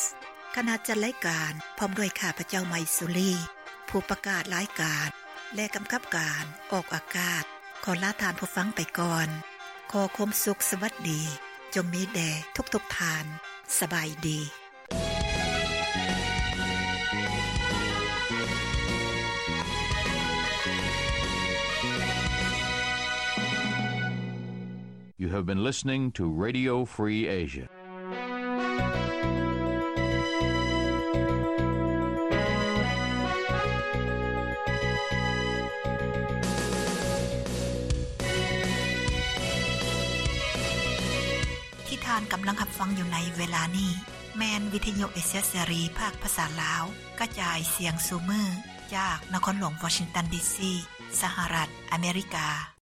ຄະນະຈັດລາຍການ ພ້ອມດ້ວຍຂ້າພະເຈົ້າ ໄມສຸລີ ຜູ້ປະກາດລາຍການ ແລະ ກຳກັບການອອກອາກາດ ຂໍລາທ່ານຜູ້ຟັງໄປກ່ອນ. ຂໍຄວາມສຸກສະຫວັດດີ ຈົ່ງມີແດ່ທຸກໆທ່ານ. ສະບາຍດີ. You have been listening to Radio Free Asia. ທີ່ທ່ານກຳລັງຮັບຟັງຢູ່ໃນເວລານີ້ ແມ່ນວິທະຍຸເອເຊຍເສລີ ພາກພາສາລາວ ກະຈາຍສຽງສູ່ມື້ ຈາກນະຄອນຫຼວງວໍຊິງຕັນ ດີຊີ ສະຫະລັດອາເມລິກາ.